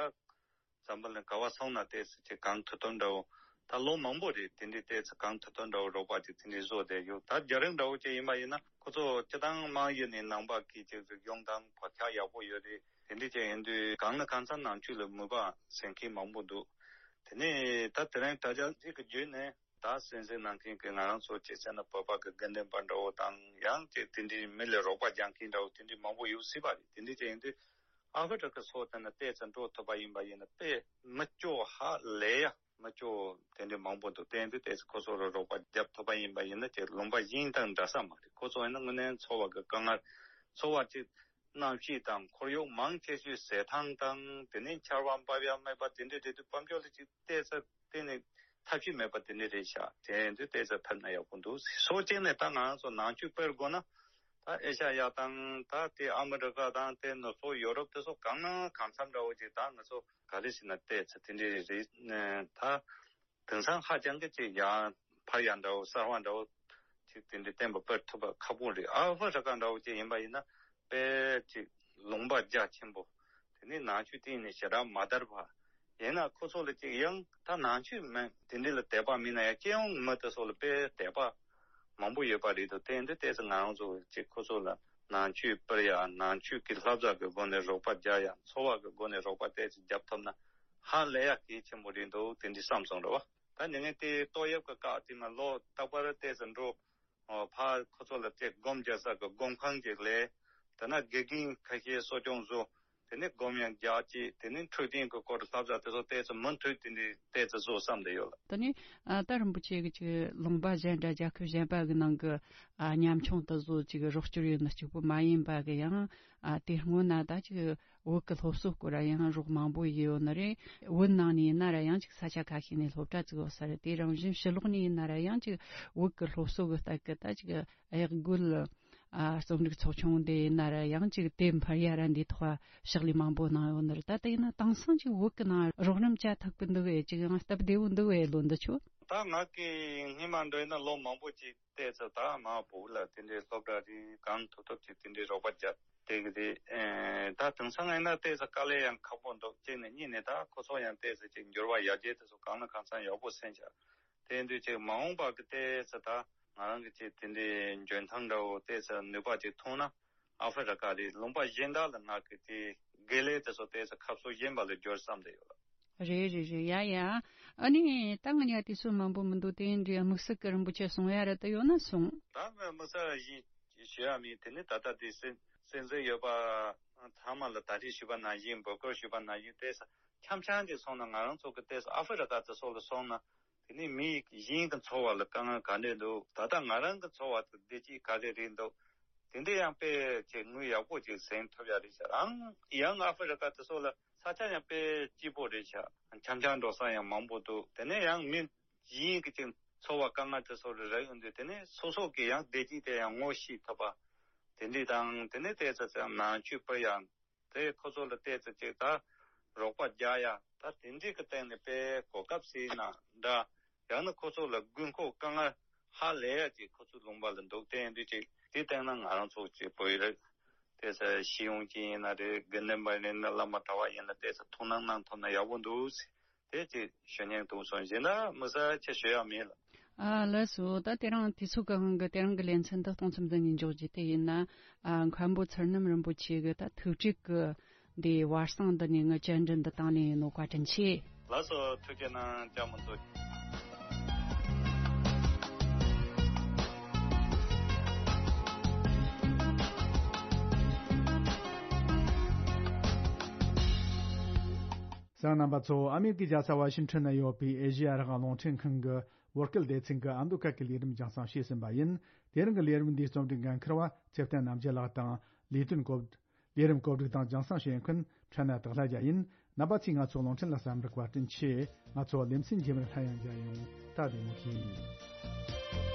འཛམ་བུ་གླིང་ག་བ་སོང་ན་ཏོག་ཙམ་ཅིག་གང་ཐུབ་ཐུབ་འདྲ་བོ། ད་ལོ་མང་པོ་རེད། དེ་འདྲའི་ཏོག་ཙམ་གང་ཐུབ་ཐུབ་འདྲ་བོ་རོགས་པ་ཅིག་དེ་འདྲའི་བཟོ་བསྡད་ཡོད། ད་རྒྱ་རིགས་འདྲ་བོ་ཅིག་ཡིན་པ་ཡིན་ན་ཁོ་ཚོ་སྤྱི་བཏང་དམངས་ཡུལ་ནས་ནང་པ་གི་ཅིག་རིག་གཞུང་དང་བག་ཆགས་ཡག་པོ་ཡོད་རེད། དེ་འདྲའི་ཅིག་ཡིན་དུས་གང་ལ་གང་འཚམ་ནང་ཆོས་ལ་མོས་པ་སེམས་ཁུར་མང་པོ་འདུག་དེ་ནས་ད་དེ་རིང་དྲ་རྒྱ་ཅིག་གི་བརྒྱུད་ནས་ད་གསན་གཟིགས་གནང་མཁན་གྱི་ང་རང་ཚོ་ཅིག་བྱས་ན་བོད་པ་གི་དགེ་འདུན་པ་འདྲ་བོ་དང་ཡང་ཅིག་དེ་འདྲའི་མི་ལ་རོགས་པ་རྒྱག་མཁན་འདྲ་བོ་དེ་འདྲའི་མང་པོ་ཡོད་སྲིད་པ་རེད། དེ་འདྲའི་ཅིག་ཡིན་དུས། ཨ་ཧྥེ་རི་ཁ་སོགས་དེ་ན་ཏོག་ཙམ་འགྲོ་ཐུབ་པ་ཡིན་པ་ཡིན་ན་དཔེ་མི་སྐྱོ་ཧ་ལས་ཡ་མི་སྐྱོ་དེ་འདྲའི་མང་པོ་འདུག་དེ་འདྲའི་ཏོག་ཙམ་ཁོ་ཚོ་ལ་རོགས་པ་རྒྱབ་ཐུབ་པ་ཡིན་པ་ཡིན་ན་ཅིག་ལུང་པ་གཞན་དང་འདྲ་ས་མ་རེད། ཁོ་ཚོ་ཡིན་ན་དངོས་གནས་འཚོ་བ་གི་དཀའ་ངལ་འཚོ་བ་ཅིག་གནམ་གཤིས་དང་ཁོར་ཡུག་མང་ཆེ་ཤོས་ཟས་ཐང་དང་དེ་ནས་ཆར་པ་འབབ་ཡ་མེད་པ་དེ་འདྲའི་རེད་དུས་དཔལ་འབྱོར་ལ་ཅིག་ཏོག་ཙམ་གཏན་ནས་ཐབས་ཤེས་མེད་པ་དེ་འདྲ་རེད་ཤག་དེ་ཡིན་དུས་ཏོག་ཙམ་ཕེབས་ན་ཡག་པོ་འདུག་སོ་གཅིག་ནས་ད་ང་རང་ཚོ་ནང་ཆོས་སྤེལ་དགོས་ན་ད་ཨེ་ཤ་ཡ་དང་ད་དེ་ཨ་མི་རི་ཀ་དང་དེ་ནུབ་ཕྱོགས་ཡོ་རོབ་དེ་ཚོ་གང་ན་གང་འཚམ་འདྲ་བོ་ཅིག་ད་ང་ཚོ་ག་རེ་ཟེར་ན་ཏོག་ཙམ་དེ་འདྲ་རེད། ད་དེང་སང་ཧ་ཅང་གི་ཅིག་ཡང་ཕར་ཡང་འདྲ་བོ་གསར་བ་འདྲ་བོ་ཅིག་དེ་འདྲ་བསྟན་པ་སྤེལ་ཐུབ་པ་ཁག་པོ་རེད། ཨ་ཧྥེ་རི་ཀ་འདྲ་བོ་ཅིག་ཡིན་པ་ཡིན་ན་དཔེ་ཅིག་ལུང་པ་རྒྱ་ཆེན་པོ། དེ་ནས་ནང་ཆོས་གཏིང་ནས་ཞེ་དྲག་མ་དར་བ། ཡིན་ན་ཁོ་ཚོ་ལ་ཅིག་ཡང་ད་ནང་ཆོས་མེད་དེ་འདྲ་ལ་དད་པ་མེད་ན་ཡང་སྤྱི་ཡོངས་མི་དེ་ཚོ་ལ་དཔེ་དད་པ་མང་པོ་ཡོད་པ་རེད་འདུག་དེ་འདི་ཏོག་ཙམ་ང་རང་ཚོ་ཅིག་ཁོ་ཚོ་ལ་ནང་ཆོས་སྤེལ་ཡ་ནང་ཆོས་ཀྱི་བསླབ་བྱ་གི་སྒོ་ནས་རོགས་པ་རྒྱག་ཡ་འཚོ་བ་གི་སྒོ་ནས་རོགས་པ་ཏོག་ཙམ་རྒྱབ་ཐུབ་ན་ཧ་ལས་ཡ་གལ་ཆེན་པོ་རེད་འདུག་དེ་འདྲ་བསམ་སོང་རེད་བ། ད་ཉིན་ངན་དེ་ཏོག་དབྱིབས་ཀྱི་བཀག་དེ་མ་ལོ་རྟག་པར་ཏོག་ཙམ་འགྲོ། ཨོ་ཕ་ཁོ་ཚོ་ལ་ཏེ་སྒོམ་རྒྱག་ས་གི་སྒོམ་ཁང་ཅིག་ལས། དེ་ན་དགེ་རྒན་ཁ་ཤས་གསོ་སྐྱོང་བཟོ། དེ་ནས་སྒོམ་ཡང་རྒྱག་ཅིག་དེ་ནས་འཕྲོད་བསྟེན་གི་སྐོར་བསླབ་བྱ་དེ་ཚོ་ཏོག་ཙམ་མུ་མཐུད་དེ་འདྲའི་ཏོག་ཙམ་བཟོ་བསམ་བསྡད་ཡོད་ལ། དེ་ནས་ཨ་ད་རིན་པོ་ཆེ་གི་ཅིག་ལུང་པ་གཞན་འདྲ་རྒྱལ་ཁབ་གཞན་པ་གི་ནང་གི་ཨ་ཉམ་ཆུང་དེ་ཚོ་ཅིག་རོགས་སྐྱོར་ཡོད་ན་གཅིག་པུ་མ་ཡིན་པ་གི་ཡང་ཨ་དེ་སྔོན་ན་ད་ཅིག་བོད་ཀྱི་སློབ་གསོ་སྐོར་ཡང་རོགས་མང་པོ་ཡོད་ནི་རེད། བོད་ནང་ནས་ཡིན་ན་ར་ཡང་ཅིག་ས་ཆ་ཁ་ཤས་ནས་སློབ་གྲྭ་བཙུགས་ཡོད་ས་རེད། དེ་རང་བཞིན་ཕྱི་ལོགས་ནས་ཡིན་ན་ར་ཡང་ཅིག་བོད་ཀྱི་སློབ་གསོ་གི་སྟེགས་ཀྱི་ད་ཅིག་གཡག་རྒོད་ཨ་རྩོམ་རིག་ཚོགས་ཆུང་དེ་ཡིན་ན་ར་ཡང་ཅིག་དེ་འཕར་ཡ་ར་འདི་ཐོག་ཕྱག་ལས་མང་པོ་གནང་ཡོད་ནི་རེད། ད་དེ་ཡིན་ན་དེང་སང་ཅིག་བོད་ཀྱི་ནང་རོགས་རམ་བྱ་ཐུབ་ཀྱི་འདུག་གས། ཅིག་ཡང་སྟབས་བདེ་བོ་འདུག་གས་ལོ་འདི་ཆོ། ད་ང་གི་སྔོན་མ་འདྲ་ཡིན་ན་ལོ་མང་པོ་ཅིག་ཏོག་ཙམ་ད་མ་བུ་ལ་དེ་འདྲའི་སློབ་གྲྭ་རེད་གང་ཐུབ་ཐུབ་ཅིག་དེ་འདྲའི་རོགས་པ་རྒྱབ་བསྡད་ཀྱི་རེད། ཨེ་ད་དེང་སང་ཡིན་ན་ཏོག་ཙམ་དཀའ་ལས་ཡང་ཁག་པོ་འདུག་གཅིག་ནས་གཉིས་ནས་ད་ཁོ་ཚོ་ཡང་ཏོག་ཙམ་ཅིག་འགྱུར་བ་ཡར་རྒྱས་དེ་ཚོ་གང་ལ་གང་འཚམ་ཡག་པོ་སེམས་ཤག་དེ་ཡིན་དུས་ཅིག་མ་འོངས་པ་གི་ཏོག་ཙམ་ད་ང་རང་གི་ཅིག་དེ་འདྲའི་འཇོན་ཐང་འདྲ་བོ་ཏོག་ཙམ་ནུས་པ་ཅིག་ཐོན་ན་ཨ་ཧྥེ་རི་ཀ་རེད་ལུང་པ་གཞན་དག་ལ་ང་གི་དེ་དགེ་ལས་དེ་ཚོ་ཏོག་ཙམ་ཁ་ཕྱོགས་གཞན་པ་ལ་བསྒྱུར་བསམ་བསྡད་ཡོད་ལ། རེད་རེད་རེད། ཡ་ཡ། ཨ་ནི་ད་ང་ཉ་དུས་ཚོད་མང་པོ་མི་འདུག་དེ་འདྲའི་དམིགས་བསལ་གྱི་རིན་པོ་ཆེ་གསུང་ཡ་རེ་ད་ཡོད་ན་གསུང་། ད་ངས་དམིགས་བསལ་ཞིག་ཞུ་ཡ་མེད། དེ་ནི་ད་ལྟ་དེ་གསན་གསན་གཟིགས་ཡོད་པ་ཚང་མ་ལ་ད་རེས་ཞུས་པ་ནང་བཞིན་འབོད་སྐུལ་ཞུས་པ་ནང་བཞིན་ཏོག་ཙམ་འཆམ་འཆམ་ཅིག་སོང་ན་ང་རང་ཚོ་གི་ཏོག་ཙམ་ཨ་ཧྥེ་རི་ཀ་དེ་ཚོ་ལ་སོང་ན་དེ་ནི་མི་གཞན་གྱི་འཚོ་བ་ལ་དཀའ་ངལ་ག་འདྲས་འདུག་ད་ལྟ་ང་རང་གི་འཚོ་བ་དེ་བདེ་སྐྱིད་ག་རེ་རེད་འདུག་དེ་འདྲ་ཡང་དཔེ་ཅིག་དངུལ་ཡག་པོ་ཅིག་ཟིན་ཐུབ་ཡ་རེད་ཤག་ཡང་ཡང་ཨ་ཧྥེ་རི་ཀ་དེ་ཚོ་ལ་ས་ཆ་ཡང་དཔེ་སྐྱིད་པོ་རེད་ཤག་འཆམ་འཆམ་འགྲོ་ས་ཡང་མང་པོ་འདུག་དེ་ནས་ཡང་མི་གཞན་གྱི་ཅིག་འཚོ་བ་དཀའ་ངལ་དེ་ཚོ་རེ་རེ་ཡོང་དུས་དེ་ནས་སོ་སོ་གི་ཡང་བདེ་སྐྱིད་དེ་ཡང་ངོ་ཤེས་ཐུབ་པ་དེ་འདྲ་དང་དེ་ནས་ཏོག་ཙམ་ནང་ཆོས་སྤེལ་ཡ་དེ་ཁོ་ཚོ་ལ་ཏོག་ཙམ་ཅིག་ད་རོགས་པ་རྒྱག་ཡ་ད་དེ་འདྲའི་གི་སྟེང་ནས་དཔེ་གོ་སྐབས་ཟེར་ན་འདྲ། ཡང་ན་ཁོ་ཚོ་ལ་དགོས་མཁོ་དཀའ་ངལ་ཧ་ལས་ཡ་ཅིག་ཁོ་ཚོ་ལུང་པ་ལ་འདུག་དེ་ཡིན་དུས་ཅིག་དེ་སྟེང་ན་ང་རང་ཚོ་ཅིག་བོད་ཡིག་རེད་དེ་ས་ཤེས་ཡོན་ཅན་ཡིན་ན་རེད། དགེ་འདུན་པ་ཡིན་ན་བླ་མ་གྲྭ་བ་ཡིན་ན་དེ་ས་ཐུགས་སྣང་གནང་ཐུབ་ན་ཡག་པོ་འདུག་ཟེར། དེ་ཅིག་ཞུ་སྙིང་འདུག་སོང་། གཞན་ན་མི་ས་ཆེ་ཞུ་ཡ་མེད་ལ། ཨ་ལགས་སོ། ད་དེ་རིང་དུས་ཚོད་ཀྱི་དབང་གིས་དེ་རིང་གི་ལེ་ཚན་འདི་གཏོང་མཚམས་འདི་ནས་འཇོག་རྒྱུ་དེ་ཡིན་ན། ཨ་མཁན་པོ་ཚུལ་རྣམ་རིན་པོ་ཆེ་གི་ད་ཐུགས་དྲུག་གི་འདི་བར་གསེང་འདི་ནས་ངའི་བཅར་འདྲི་འདི་དང་ལེན་ཡིན་ནོ། བཀའ་དྲིན་ཆེ། ལགས་སོ། ཐུགས་རྗེ་གནང་། ཅང་མི་འཛོ། གསན་མཁན་རྣམ་པ་ཚོ། ཨ་མེ་རི་ཀའི་རྒྱལ་ས་ཝ་ཤིང་ཊོན་ན་ཡོད་པའི་ཨེ་ཤེ་ཡ་རང་དབང་རླུང་འཕྲིན་ཁང་གི་བོད་སྐད་སྡེ་ཚན་གྱི་ཨ་མདོ་སྐད་ཀྱི་ལས་རིམ་རྒྱང་སྲིང་བྱས་ཟིན་པ་ཡིན། དེ་རིང་གི་ལས་རིམ་འདིའི་རྩོམ་སྒྲིག་འགན་འཁུར་བ་ཚེ་བརྟན་རྣམ་རྒྱལ་ལགས་དང་། ལས་དོན་གོ་ལས་རིམ་གོ་སྒྲིག་དང་རྒྱང་སྲིང་བྱེད་མཁན་ཕྲན་ན་དག་ལྷ་རྒྱལ་ཡིན། རྣམ་པ་ཚོས་ང་ཚོའི་རླུང་འཕྲིན་ལ་གསན་པར་བཀའ་དྲིན་ཆེ། ང་ཚོ་ལེ་ཚན་རྗེས་མར་སླར་ཡང་མཇལ་ཡོང་། ད་བདེ་མོ་བྱོས།